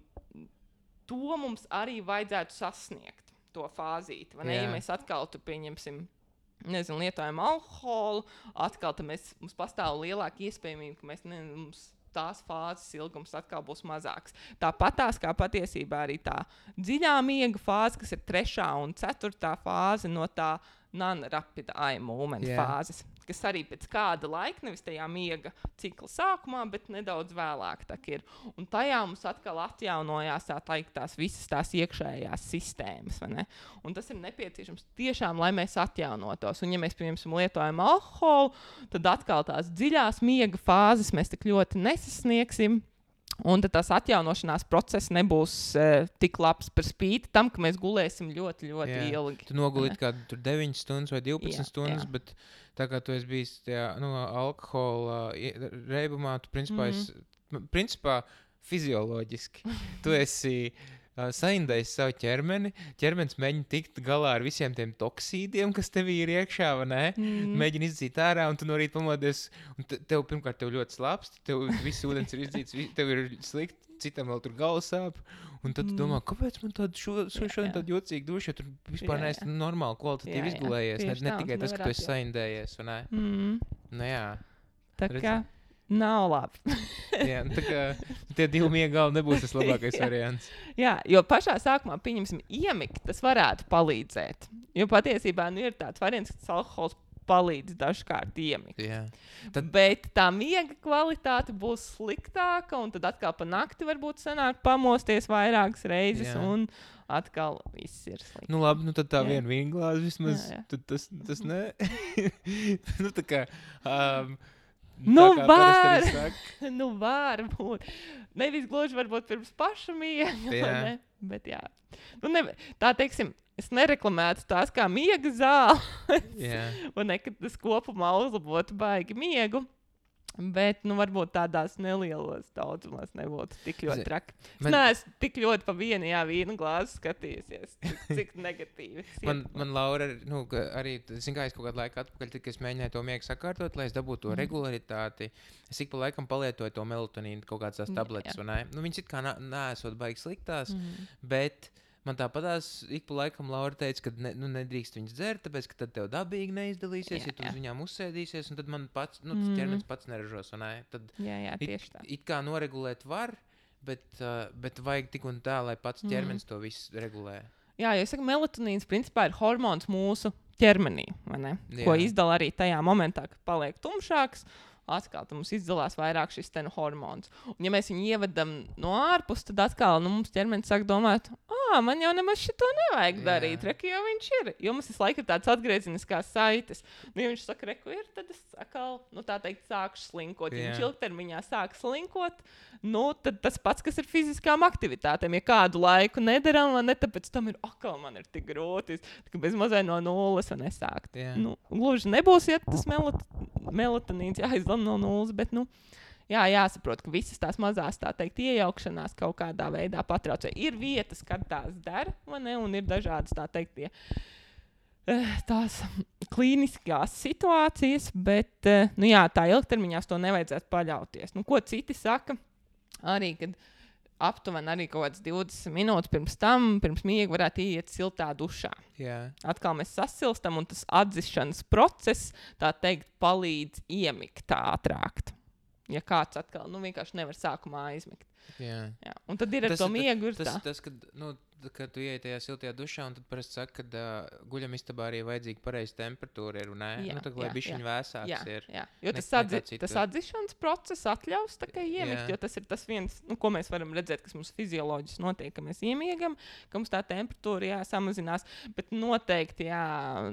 to mums arī vajadzētu sasniegt, to fāzīti, vai ne? Ja mēs atkal tur pieņemsim lietojam alkoholu, atkal mums pastāv lielāka iespējamība, ka mums tās fāzes ilgums atkal būs mazāks. Tāpatās kā patiesībā arī tā dziļā miega fāze, kas ir 3. un 4. fāze no tā non-rapid eye movement fāzes, kas arī pēc kāda laika, nevis tajā miega cikla sākumā, bet nedaudz vēlāk tā ir. Un tajā mums atkal atjaunojās tās visas tās iekšējās sistēmas, vai ne? Un tas ir nepieciešams tiešām, lai mēs atjaunotos. Un ja mēs, piemēram, lietojam alkoholu, tad atkal tās dziļās miega fāzes mēs tik ļoti nesasniegsim. Un tad tās atjaunošanās process nebūs tik labs par spīti tam, ka mēs gulēsim ļoti, ļoti ilgi. Tu nogulīti kādu tur 9 stundas vai 12 stundas, bet tā kā tu esi bijis tajā, alkohola reibumā, tu principā fizioloģiski tu esi saindējis savu ķermeni, ķermenis mēģina tikt galā ar visiem tiem toksīdiem, kas tevī ir iekšā, vai ne? Mēģina izdzīt ārā, un tu no rīta pamodies, un pirmkārt tev ļoti slāpst, tev viss ūdens ir izdzīts, tev ir slikti, citam vēl tur galvas sāp, un tad tu domā, kāpēc man šodien tāda jocīga duša, jo tur vispār neesi normāli kvalitatīvi izgulējies, ne tikai tas, ka tu esi saindējies, vai ne? Tā kā nav labi. Tā kā tie 2 miega galvi nebūs tas labākais variants. Jā, jo pašā sākumā, pieņemsim, iemigt, tas varētu palīdzēt. Jo patiesībā ir tāds variants, ka tas alkohols palīdz dažkārt iemigt. Bet tā miega kvalitāte būs sliktāka, un tad atkal pa nakti varbūt sanāk pamosties vairākas reizes, un atkal viss ir slikti. Nu labi, tad tā viena vīnglāze vismaz, tad tas ne. Tā kā... var būt. Nevis gluži varbūt pirms paša miega, bet jā. Tā teiksim, es nereklamētu tās kā miega zāles, un nekad tas kopumā uzlabotu baigi miegu. Bet, varbūt tādās nelielos daudzumās nebūtu tik ļoti traki. Es neesmu tik ļoti pa vienu vīna glāzi skatījusies, cik negatīvi. Man Laura, arī, es kaut kādu laiku atpakaļ, kad es mēģināju to miegu sakārtot, lai es dabūtu to regularitāti. Es ik pa laikam palietoju to melatonīnu, kaut kādas tās tabletes, vai ne? Viņas it kā neesot baigi sliktās, bet... Man tāpatās ik pa laikam Laura teica, ka nedrīkst viņas dzert, tāpēc, ka tad tev dabīgi neizdalīsies, ja tu uz viņām uzsēdīsies, un tad man pats, tas ķermenis pats neražos, un tad tieši tā. It kā noregulēt var, bet vajag tik un tā, lai pats ķermenis to visu regulē. Jā, jo es saku, melatonīns principā ir hormons mūsu ķermenī, vai ne? Ko izdala arī tajā momentā, kad paliek tumšāks. Atkal mums izdalās vairāk šis hormons. Un ja mēs viņu ievedam no ārpus, tad atkal mums ķermenis sāk domāt, man jau nemaz šito nevajag darīt, reku, jo viņš ir. Jo mums visu laiku ir tāds atgriezeniskās saites. Ja viņš saka, reku ir, tad es atkal, tā teikt, sākšu slinkot. Ja viņš ilgtermiņā sāk slinkot, tad tas pats, kas ir fiziskām aktivitātēm. Ja kādu laiku nedaram, tāpēc tam ir, man ir tik grūti, ka bez mazai no nulles var nesākt. Gluži nebūs, ja tas melatonīns jāizdala no nulles, bet, jāsaprot, ka visas tās mazās, tā teikt, iejaukšanās kaut kādā veidā patraucē. Ir vietas, kad tās dara, un ir dažādas, tā teikt, tās klīniskās situācijas, bet, tā ilgtermiņā to nevajadzētu paļauties. Ko citi saka, arī, kad aptuveni arī kaut kāds 20 minūtes pirms miega varētu iet siltā dušā. Atkal mēs sasilstam, un tas atzišanas process, tā teikt, palīdz iemigt ātrāk. Ja kāds atkal vienkārši nevar sākumā aizmigt. Jā. Un tad ir ar to miegu ir tā. Tas, kad tu ieej tajā siltajā dušā, un tad parasti saka, ka guļamistabā arī vajadzīga pareiza temperatūra ir, un lai bišķiņ vēsāks ir. Jā. Jo tas atzišanas process atļaus tā kā iemigt, jo tas ir tas viens, ko mēs varam redzēt, kas mums fizioloģiski notiek, ka mēs iemiegam, ka mums tā temperatūra samazinās, bet noteikti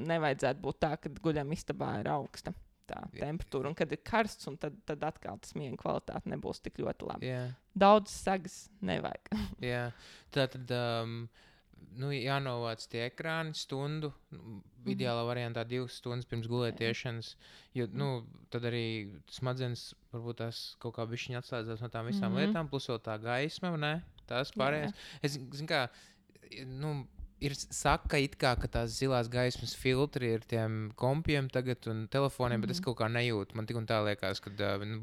nevajadzētu būt tā, ka guļamistabā ir augsta tā temperatūra, un kad ir karsts, un tad atkal tas miega kvalitāte nebūs tik ļoti labi. Daudz sagas nevajag. Tātad jānovāc tie ekrāni stundu, ideālā variantā 2 stundas pirms gulētiešanas, jo tad arī smadzenes varbūt tās kaut kā bišķiņ atslēdzās no tām visām lietām, plus vēl tā gaisma, ne? Tās pārējās. Es zinu kā, ir saka it kā, ka tās zilās gaismas filtri ir tiem kompiem tagad un telefoniem, bet es kaut kā nejūtu. Man tik un tā liekas, ka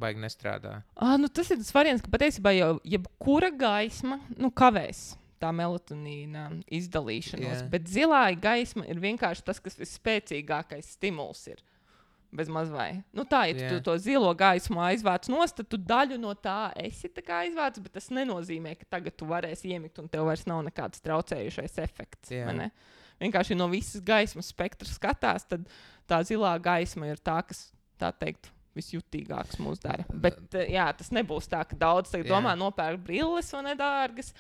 baigi nestrādā. Tas ir tas variants, ka patiesībā jau jebkura gaisma kavēs tā melatonīna izdalīšanos, bet zilā gaisma ir vienkārši tas, kas visspēcīgākais stimuls ir. Bez mazvai. Tu to zilo gaismu aizvāc nost, tad tu daļu no tā esi tā kā aizvāc, bet tas nenozīmē, ka tagad tu varēsi iemigt un tev vairs nav nekāds traucējušais efekts. Vienkārši no visas gaismas spektra skatās, tad tā zilā gaisma ir tā, kas, tā teikt, visjutīgāks mūs dara. Bet, jā, tas nebūs tā, ka daudz domā nopērk brilles vai nedārgas,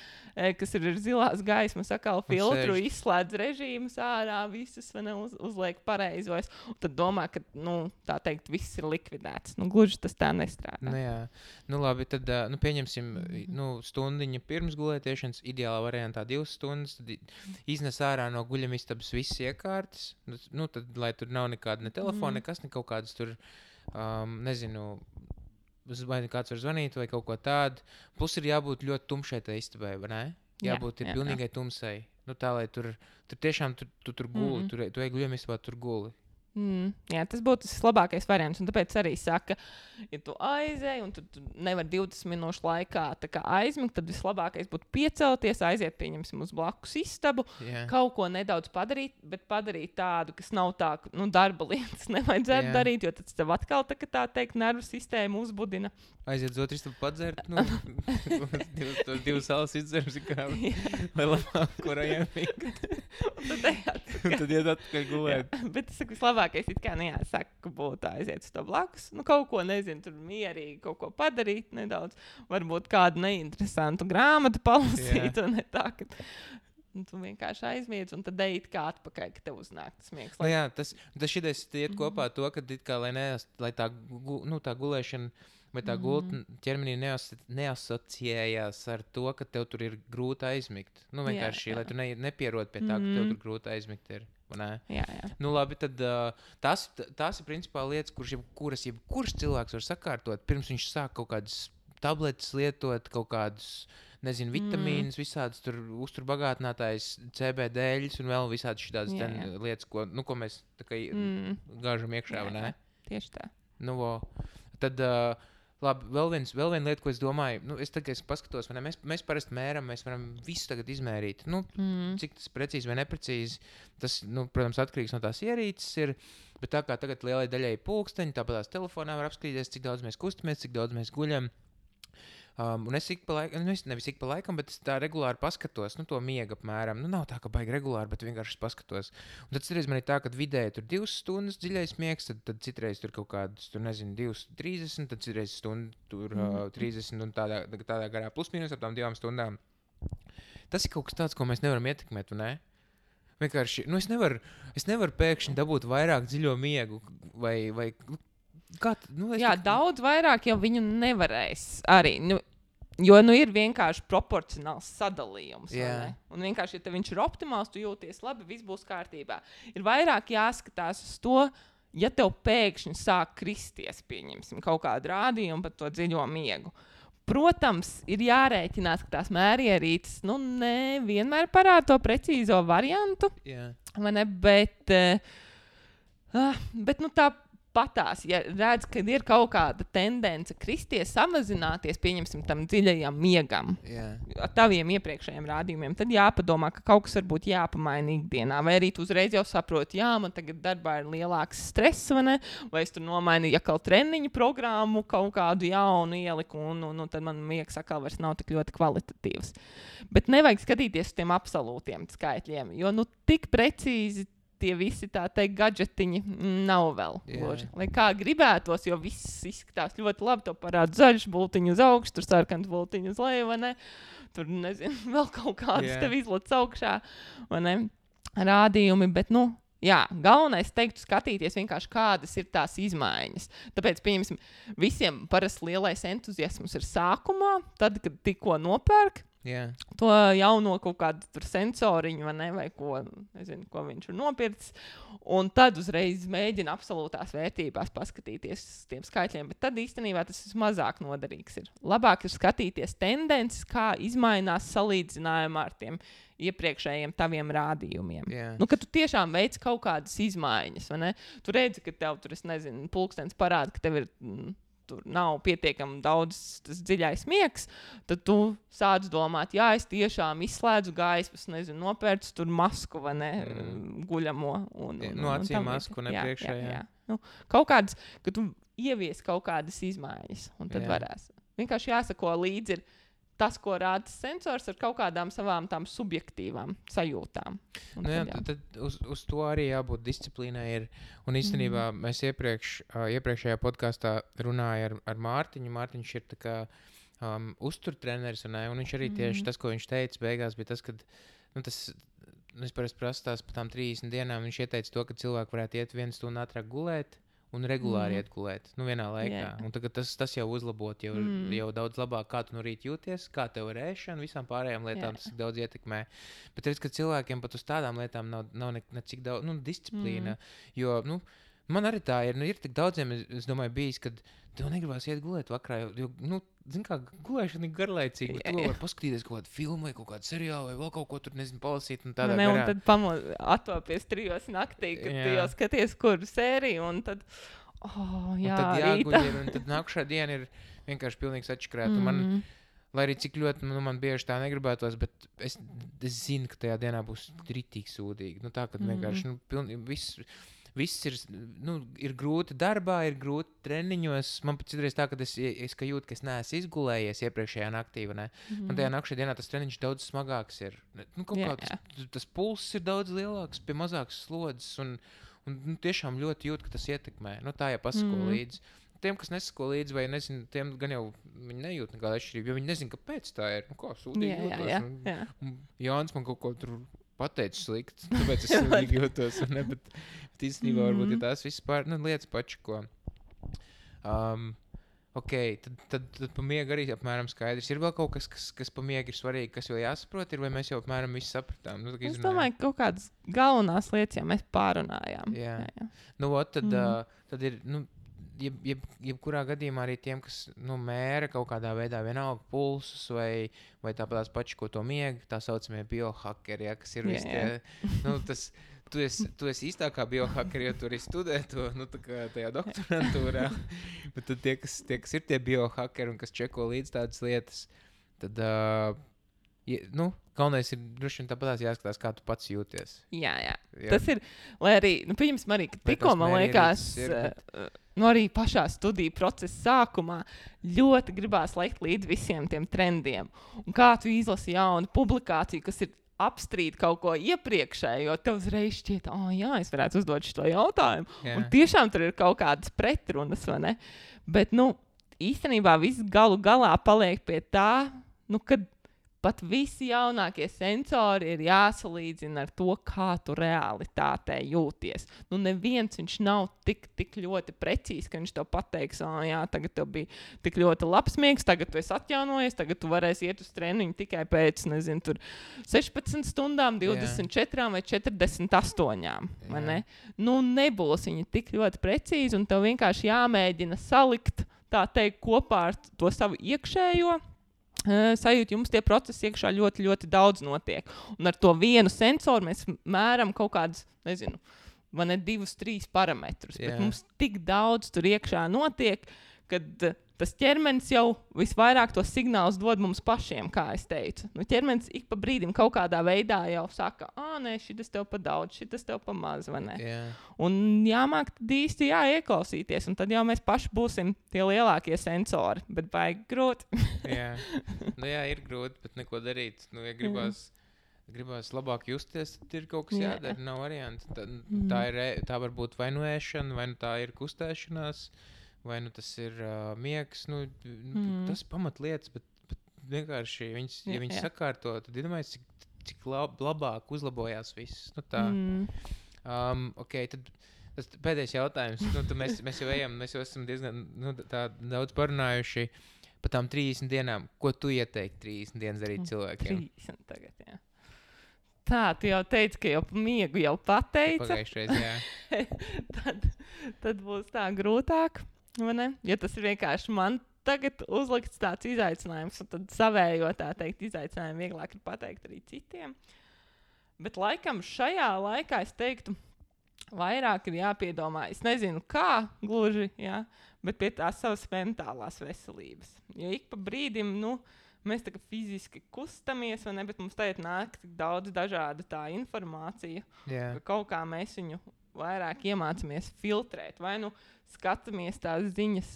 kas ir zilās gaismas, atkal filtru, izslēdz režīmus ārā, visas uzliek pareizos. Un tad domā, ka, tā teikt, viss ir likvidēts. Gluži tas tā nestrādā. Jā. Labi, tad pieņemsim stundiņu pirms gulētiešanas, ideālā variantā 2 stundas, tad iznes ārā no guļamistabas visas iekārtas, tad, lai tur nav nekāda ne telefona, nekas, ne kaut kādas tur nezinu, vai kāds var zvanīt vai kaut ko tādu. Plus ir jābūt ļoti tumšai tai istabai, vai ne? Jābūt ir pilnīgai tumsai. Tā, lai tur tiešām tu tur guli, tu ej guļamistabā, tur guli. Jā, tas būtu tas labākais variants. Un tāpēc arī saka, ja tu aizej un tu nevar 20 minūšu laikā aizmigt, tad vislabākais būtu piecelties, aiziet, pieņemsim, uz blakus istabu, kaut ko nedaudz padarīt, bet padarīt tādu, kas nav tā, darba lietas nevajadzētu darīt, jo tad tev atkal tā teikt nervu sistēmu uzbudina. Aiziet uz otru istabu padzert, divas salas izdzerums, lai labāk, kur iemigt. Tad iet atpakaļ gulēt. Bet es saku, vislabākais it kā nejāsaka, ka būtu aiziet uz to blakus. Kaut ko, nezinu, tur mierīgi kaut ko padarīt nedaudz. Varbūt kādu neinteresantu grāmatu palasīt, un ne tā, ka tu vienkārši aizmiedz, un tad ejit kā atpakaļ, ka tev uznāk tas miegs. Jā, tas šitais iet kopā to, ka lai tā gulēšana vai tā gultne ķermenī neasociējās ar to, ka tev tur ir grūti aizmigt. Vienkārši, lai tu nepierod pie tā, ka tev tur grūti aizmigt ir. Jā. Labi, tad tās ir principā lietas, kuras jebkurš cilvēks var sakārtot, pirms viņš sāk kaut kādas tabletes lietot, kaut kādus, nezinu, vitamīnus, visādas tur uzturbagātinātājs, CBD-ļus un vēl visādas šitās lietas, ko mēs tā kā gāžam iekšā, vai ne? Tieši tā. Tad... Labi, vēl viena lieta, ko es domāju, es tagad paskatos, mēs parasti mēram, mēs varam visu tagad izmērīt. Cik tas precīzi vai neprecīzi, tas, protams, atkarīgs no tās ierīces ir, bet tā kā tagad lielai daļai pulksteņi, tāpat tās telefonā var apskatīties, cik daudz mēs kustamies, cik daudz mēs guļam. Un es nevis ik pa laikam, bet es tā regulāri paskatos, to miega apmēram. Nav tā, ka baigi regulāri, bet vienkārši paskatos. Un tad citreiz man ir tā, ka vidēji tur 2 stundas dziļais miegs, tad citreiz tur kaut kādas, 2:30, tad citreiz stundu tur 30 un tādā garā plus mīnus ap tām 2 stundām. Tas ir kaut kas tāds, ko mēs nevaram ietekmēt, vai ne? Vienkārši, es nevaru pēkšņi dabūt vairāk dziļo miegu vai daudz vairāk jau viņu nevarēs arī. Jo ir vienkārši proporcionāls sadalījums. Un vienkārši, ja viņš ir optimāls, tu jūties labi, viss būs kārtībā. Ir vairāk jāskatās uz to, ja tev pēkšņi sāk kristies, pieņemsim, kaut kādu rādījumu par to dziļo miegu. Protams, ir jārēķinās, ka tās mērierītes nevienmēr parāda to precīzo variantu. Vai ne? Bet tā patās, ja redz, ka ir kaut kāda tendence kristies, samazināties, pieņemsim, tam dziļajam miegam, ar taviem iepriekšējiem rādījumiem, tad jāpadomā, ka kaut kas varbūt jāpamaina ikdienā, vai arī tu uzreiz jau saproti, man tagad darbā ir lielāks stress, vai es tur nomainu atkal treniņu programmu, kaut kādu jaunu ieliku, un tad man miegs atkal vairs nav tik ļoti kvalitatīvs. Bet nevajag skatīties uz tiem absolūtiem skaitļiem, jo tik precīzi tie visi tā teikt gadžetiņi nav vēl. Lai kā gribētos, jo viss izskatās ļoti labi, to parāda zaļš bultiņu uz augšu, tur sarkans bultiņu uz leju, vai ne? Tur, nezinu, vēl kaut kādas tev izlec augšā, vai ne? Rādījumi, bet, galvenais teiktu skatīties vienkārši, kādas ir tās izmaiņas. Tāpēc, pieņemsim, visiem parasti lielais entuziasms ir sākumā, tad, kad tikko nopērk, to jauno kaut kādu sensoriņu vai ko, nezinu, ko viņš ir nopircis, un tad uzreiz mēģina absolūtās vērtībās paskatīties uz tiem skaitļiem, bet tad īstenībā tas mazāk noderīgs ir. Labāk ir skatīties tendences, kā izmainās salīdzinājumā ar tiem iepriekšējiem taviem rādījumiem. Kad tu tiešām veic kaut kādas izmaiņas, vai ne? Tu redzi, ka tev tur, es nezinu, pulkstens parāda, ka tev ir tur nav pietiekami daudz tas dziļais miegs, tad tu sāc domāt, es tiešām izslēdzu gaismas, nezinu, nopērcu tur masku, vai ne, guļamo. Acīm masku nepriekšējā. Kaut kādas, ka tu ievies kaut kādas izmaiņas, un tad varēs. Vienkārši jāsako līdzi ir tas, ko rāda sensors ar kaut kādām savām tām subjektīvām sajūtām. Tad uz to arī jābūt disciplīnai ir. Un īstenībā mēs iepriekšējā podkastā runāja ar Mārtiņu. Mārtiņš ir tā kā uzturtreneris, un viņš arī tieši tas, ko viņš teica beigās, bija tas, ka es parasti prasu tās par tām 30 dienām, viņš ieteica to, ka cilvēki varētu iet 1 stundu ātrāk gulēt, un regulāri iet gulēt, vienā laikā. Un tagad tas jau uzlabot, jau daudz labāk, kā tu no rīta jūties, kā tev ir ēšana, visām pārējām lietām tas daudz ietekmē. Bet redz, ka cilvēkiem pat uz tādām lietām nav necik daudz disciplīna, jo, man arī tā ir, ir tik daudziem, es domāju, bijis, kad tev negribās iet gulēt vakarā, jo zini kā, gulēšana ir garlaicīga, bet tu var paskatīties kaut kādu filmu vai kaut kādu seriālu vai vēl kaut ko tur, palasīt un tādā garā. Un tad attopies 3 naktī, kad tu jau skaties, kuru sēriju, un tad, tad jāguļ, un tad nākušā diena ir vienkārši pilnīgs atšķirēt. Lai arī cik ļoti man bieži tā negribētos, bet es zinu, ka tajā dienā būs ritīgi sūdīgi. Tā, kad vienkārši viss ir grūti darbā, ir grūti treniņos. Man pat citreiz tā, ka es jūtu, ka es neesmu izgulējies iepriekšējā naktī. Man tajā nākšajā dienā tas treniņš daudz smagāks ir. Tas pulss ir daudz lielāks, pie mazākas slodzes. Un tiešām ļoti jūt, ka tas ietekmē. Tā jau pasako līdzi. Tiem, kas nesako līdzi, vai nezinu, tiem gan jau viņi nejūt nekādu atšķirību, jo viņi nezinu, kāpēc tā ir. Kā sūdīgi jūtos. Jānis man kaut ko tur pateicis slikti, tāpēc es sūdīgi jūtos. Bet īstenībā varbūt ir tās vispār lietas pačako. Ok, tad pa miegu arī apmēram skaidrs. Ir vēl kaut kas pa miegu ir svarīgi, kas vēl jāsaprot, vai mēs jau apmēram visu sapratām? Es domāju, ka kaut kādas galvenās lietas jau mēs pārunājām. Jā. Tad ir, jebkurā gadījumā arī tiem, kas mēra kaut kādā veidā vienalga pulsus vai tāpēc paši, ko to miegu, tā saucamie biohackeri, kas ir visi tie, tu esi īstākā biohackeri, jo tu arī studē to, tā kā tajā doktorantūrā, bet tad tie, kas ir tie biohackeri un kas čeko līdz tādas lietas, tad, galvenais ir droši vien tāpatās jāskatās, kā tu pats jūties. Jā. Tas ir, lai arī, pieņemsim arī, ka tikko man liekas, arī pašā studiju procesa sākumā ļoti gribās lekt līdz visiem tiem trendiem. Un kā tu izlasi jaunu publikāciju, kas ir apstrīd kaut ko iepriekšēju, jo tev uzreiz šķiet, es varētu uzdot šo jautājumu. Jā. Un tiešām tur ir kaut kādas pretrunas, vai ne? Bet, īstenībā viss galu galā paliek pie tā, kad pat visi jaunākie sensori ir jāsalīdzina ar to, kā tu realitātē jūties. Neviens viņš nav tik ļoti precīzi, ka viņš tev pateiks, tagad tev bija tik ļoti labs miegs, tagad tu esi atjaunojies, tagad tu varēsi iet uz treniņu tikai pēc, 16 stundām, 24 vai 48. Vai ne? Nebūs viņi tik ļoti precīzi, un tev vienkārši jāmēģina salikt, tā teikt, kopā ar to savu iekšējo sajūta, jums tie procesi iekšā ļoti, ļoti daudz notiek. Un ar to vienu sensoru mēs mēram kaut kādus, 2-3 parametrus. Bet mums tik daudz tur iekšā notiek, kad tas ķermenis jau visvairāk tos signālus dod mums pašiem, kā es teicu. Ķermenis ik pa brīdim kaut kādā veidā jau saka, nē, šitas tev pa daudz, šitas tev pa maz, vai ne? Yeah. Un jāmāk tad īsti ieklausīties, un tad jau mēs paši būsim tie lielākie sensori, bet baigi grūti. Jā, ir grūti, bet neko darīt. Ja gribās labāk justies, tad ir kaut kas jādara, nav varianti. Tā var būt vai ēšana, vai tā ir kustēšanās, vai tas ir miegs, tas pamatlietas, bet vienkārši, ja viņi sakārto, tad iedomājies, cik labāk uzlabojās viss. Ok, tad tas pēdējais jautājums. Mēs jau esam diezgan daudz parunājuši par tām 30 dienām. Ko tu ieteikti 30 dienas darīt cilvēkiem? 30 tagad, jā. Tā, tu jau teici, ka jau miegu jau pateica. Pagājušreiz, jā. tad būs tā grūtāk. Ja tas ir vienkārši man tagad uzlikts tāds izaicinājums, un tad savējo tā teikt izaicinājumu vieglāk ir pateikt arī citiem. Bet laikam šajā laikā es teiktu, vairāk ir jāpiedomā, es nezinu kā gluži, bet pie tās savas mentālās veselības. Jo ik pa brīdim, mēs tā kā fiziski kustamies, vai ne, bet mums tagad nāk tik daudz dažāda tā informācija, ka kaut kā mēs viņu vairāk iemācāmies filtrēt, vai skatāmies tās ziņas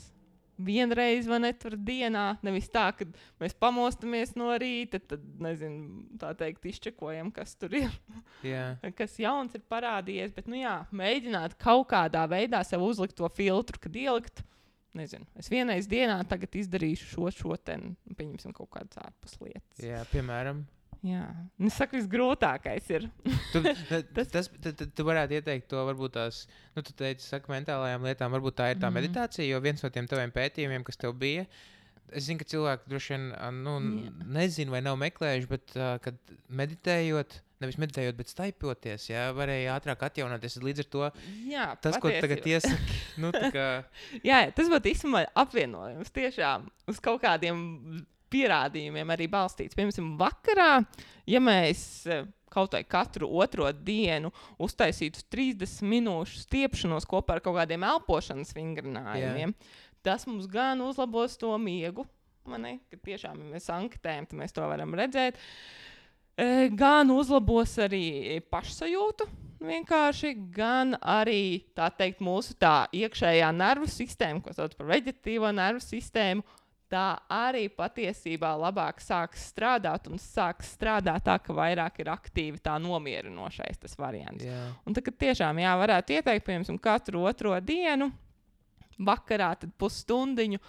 vienreiz, vai ne, tur dienā, nevis tā, ka mēs pamostamies no rīta, tad, nezinu, tā teikt, izčekojam, kas tur ir, kas jauns ir parādījies, bet, nu jā, mēģināt kaut kādā veidā sev uzlikt to filtru, kad ielikt, nezinu, es vienreiz dienā tagad izdarīšu šo ten, pieņemsim kaut kādas ārpus lietas. Jā, piemēram. Jā, es saku, visgrūtākais ir. Tu varētu ieteikt to, varbūt tās, tu teici, saka mentālajām lietām, varbūt tā ir tā meditācija, jo viens no tiem taviem pētījumiem, kas tev bija, es zinu, ka cilvēki droši vien, nezinu vai nav meklējuši, bet, kad meditējot, nevis meditējot, bet staipoties, varēja ātrāk atjaunoties, līdz ar to, tas, ko tagad iesaki, tā kā... Jā, tas būtu īstenībā apvienojums tiešām uz kaut kādiem pierādījumiem arī balstīts. Piemēram, vakarā, ja mēs kaut vai katru otro dienu uztaisītu 30 minūšu stiepšanos kopā ar kaut kādiem elpošanas vingrinājumiem, tas mums gan uzlabos to miegu, kad tiešām, ja mēs anketējam, tad mēs to varam redzēt, gan uzlabos arī pašsajūtu vienkārši, gan arī, tā teikt, mūsu tā iekšējā nervu sistēma, ko sauc par veģetatīvo nervu sistēmu, tā arī patiesībā labāk sāks strādāt un sāks strādāt tā, ka vairāk ir aktīvi tā nomierinošais tas variants. Un tad, kad tiešām varētu ieteikt, piemēram, katru otro dienu, vakarā tad pusstundiņu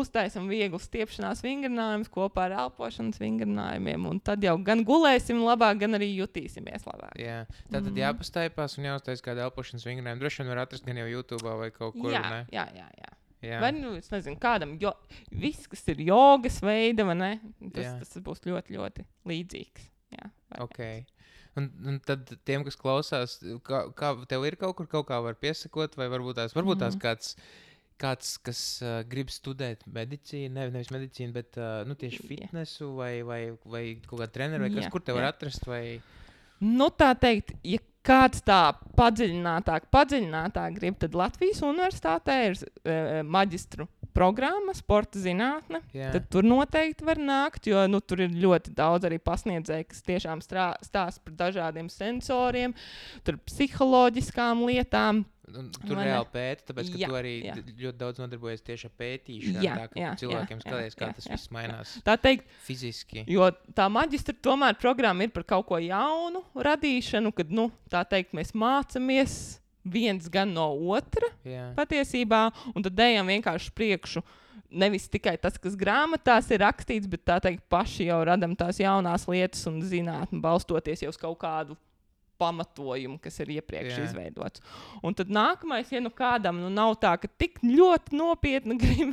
uztaisam vieglu stiepšanās vingrinājumus kopā ar elpošanas vingrinājumiem, un tad jau gan gulēsim labāk, gan arī jutīsimies labāk. Jā, tātad jāpastaipās un jāuztais kādu elpošanas vingrinājumu. Droši vien var atrast gan jau YouTube vai kaut kur, ne? Jā. Vai, es nezinu, kādam, viss, kas ir jogas veida, vai ne? Tas būs ļoti, ļoti līdzīgs. Jā, okay. Un tad tiem, kas klausās, kā tev ir kaut kur kaut kā var piesakot, vai varbūt tās kāds, kas grib studēt medicīnu, nevis medicīnu, bet tieši fitnesu vai kaut kādu treneru, vai kas, kur te var atrast, vai... Tā teikt, ja kāds tā padziļinātāk grib, tad Latvijas universitātē ir maģistru programma, sporta zinātne. Tad tur noteikti var nākt, jo tur ir ļoti daudz arī pasniedzēji, kas tiešām stāsta par dažādiem sensoriem, tur psiholoģiskām lietām. Tur reāli pēta, tāpēc, ka tu arī ļoti daudz nodarbojies tieši ar pētīšanu, tā ka cilvēkiem skaties, kā tas viss mainās tā teikt, fiziski. Jo tā maģistra tomēr programma ir par kaut ko jaunu radīšanu, kad, tā teikt, mēs mācamies viens gan no otra patiesībā, un tad ejam vienkārši priekšu. Nevis tikai tas, kas grāmatās ir rakstīts, bet tā teikt, paši jau radam tās jaunās lietas un zinātni, balstoties jau uz kaut kādu pamatojumu, kas ir iepriekš izveidots. Un tad nākamais, ja kādam nav tā, ka tik ļoti nopietni grib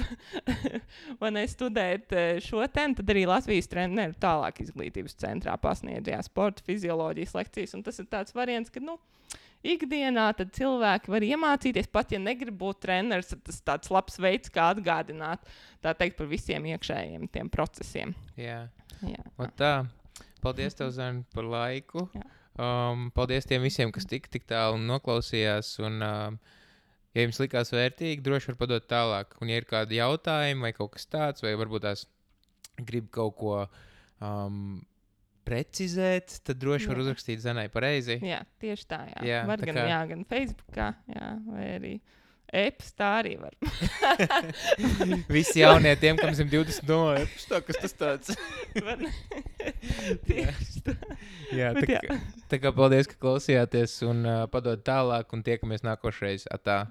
studēt šo tēmu, tad arī Latvijas treneru tālāk izglītības centrā pasniedzējā sporta fizioloģijas lekcijas. Un tas ir tāds variants, ka ikdienā tad cilvēki var iemācīties, pat ja negrib būt treneris, tad tas tāds labs veids, kā atgādināt, tā teikt, par visiem iekšējiem tiem procesiem. Jā. Tā. Paldies tev, Zani, par laiku. Paldies tiem visiem, kas tik tālu noklausījās, un ja jums likās vērtīgi, droši var padot tālāk. Un ja ir kādi jautājumi vai kaut kas tāds, vai varbūt tās grib kaut ko precizēt, tad droši var uzrakstīt Zanai pareizi. Jā, tieši tā, jā. Var gan Facebookā, vai arī e-pastā arī var. Visi jaunie tiem, kam 120 domā, e-pastā, kas tas tāds? Tieši tā. Jā, tā kā paldies, ka klausījāties un padod tālāk un tiekamies nākošreiz. Atā.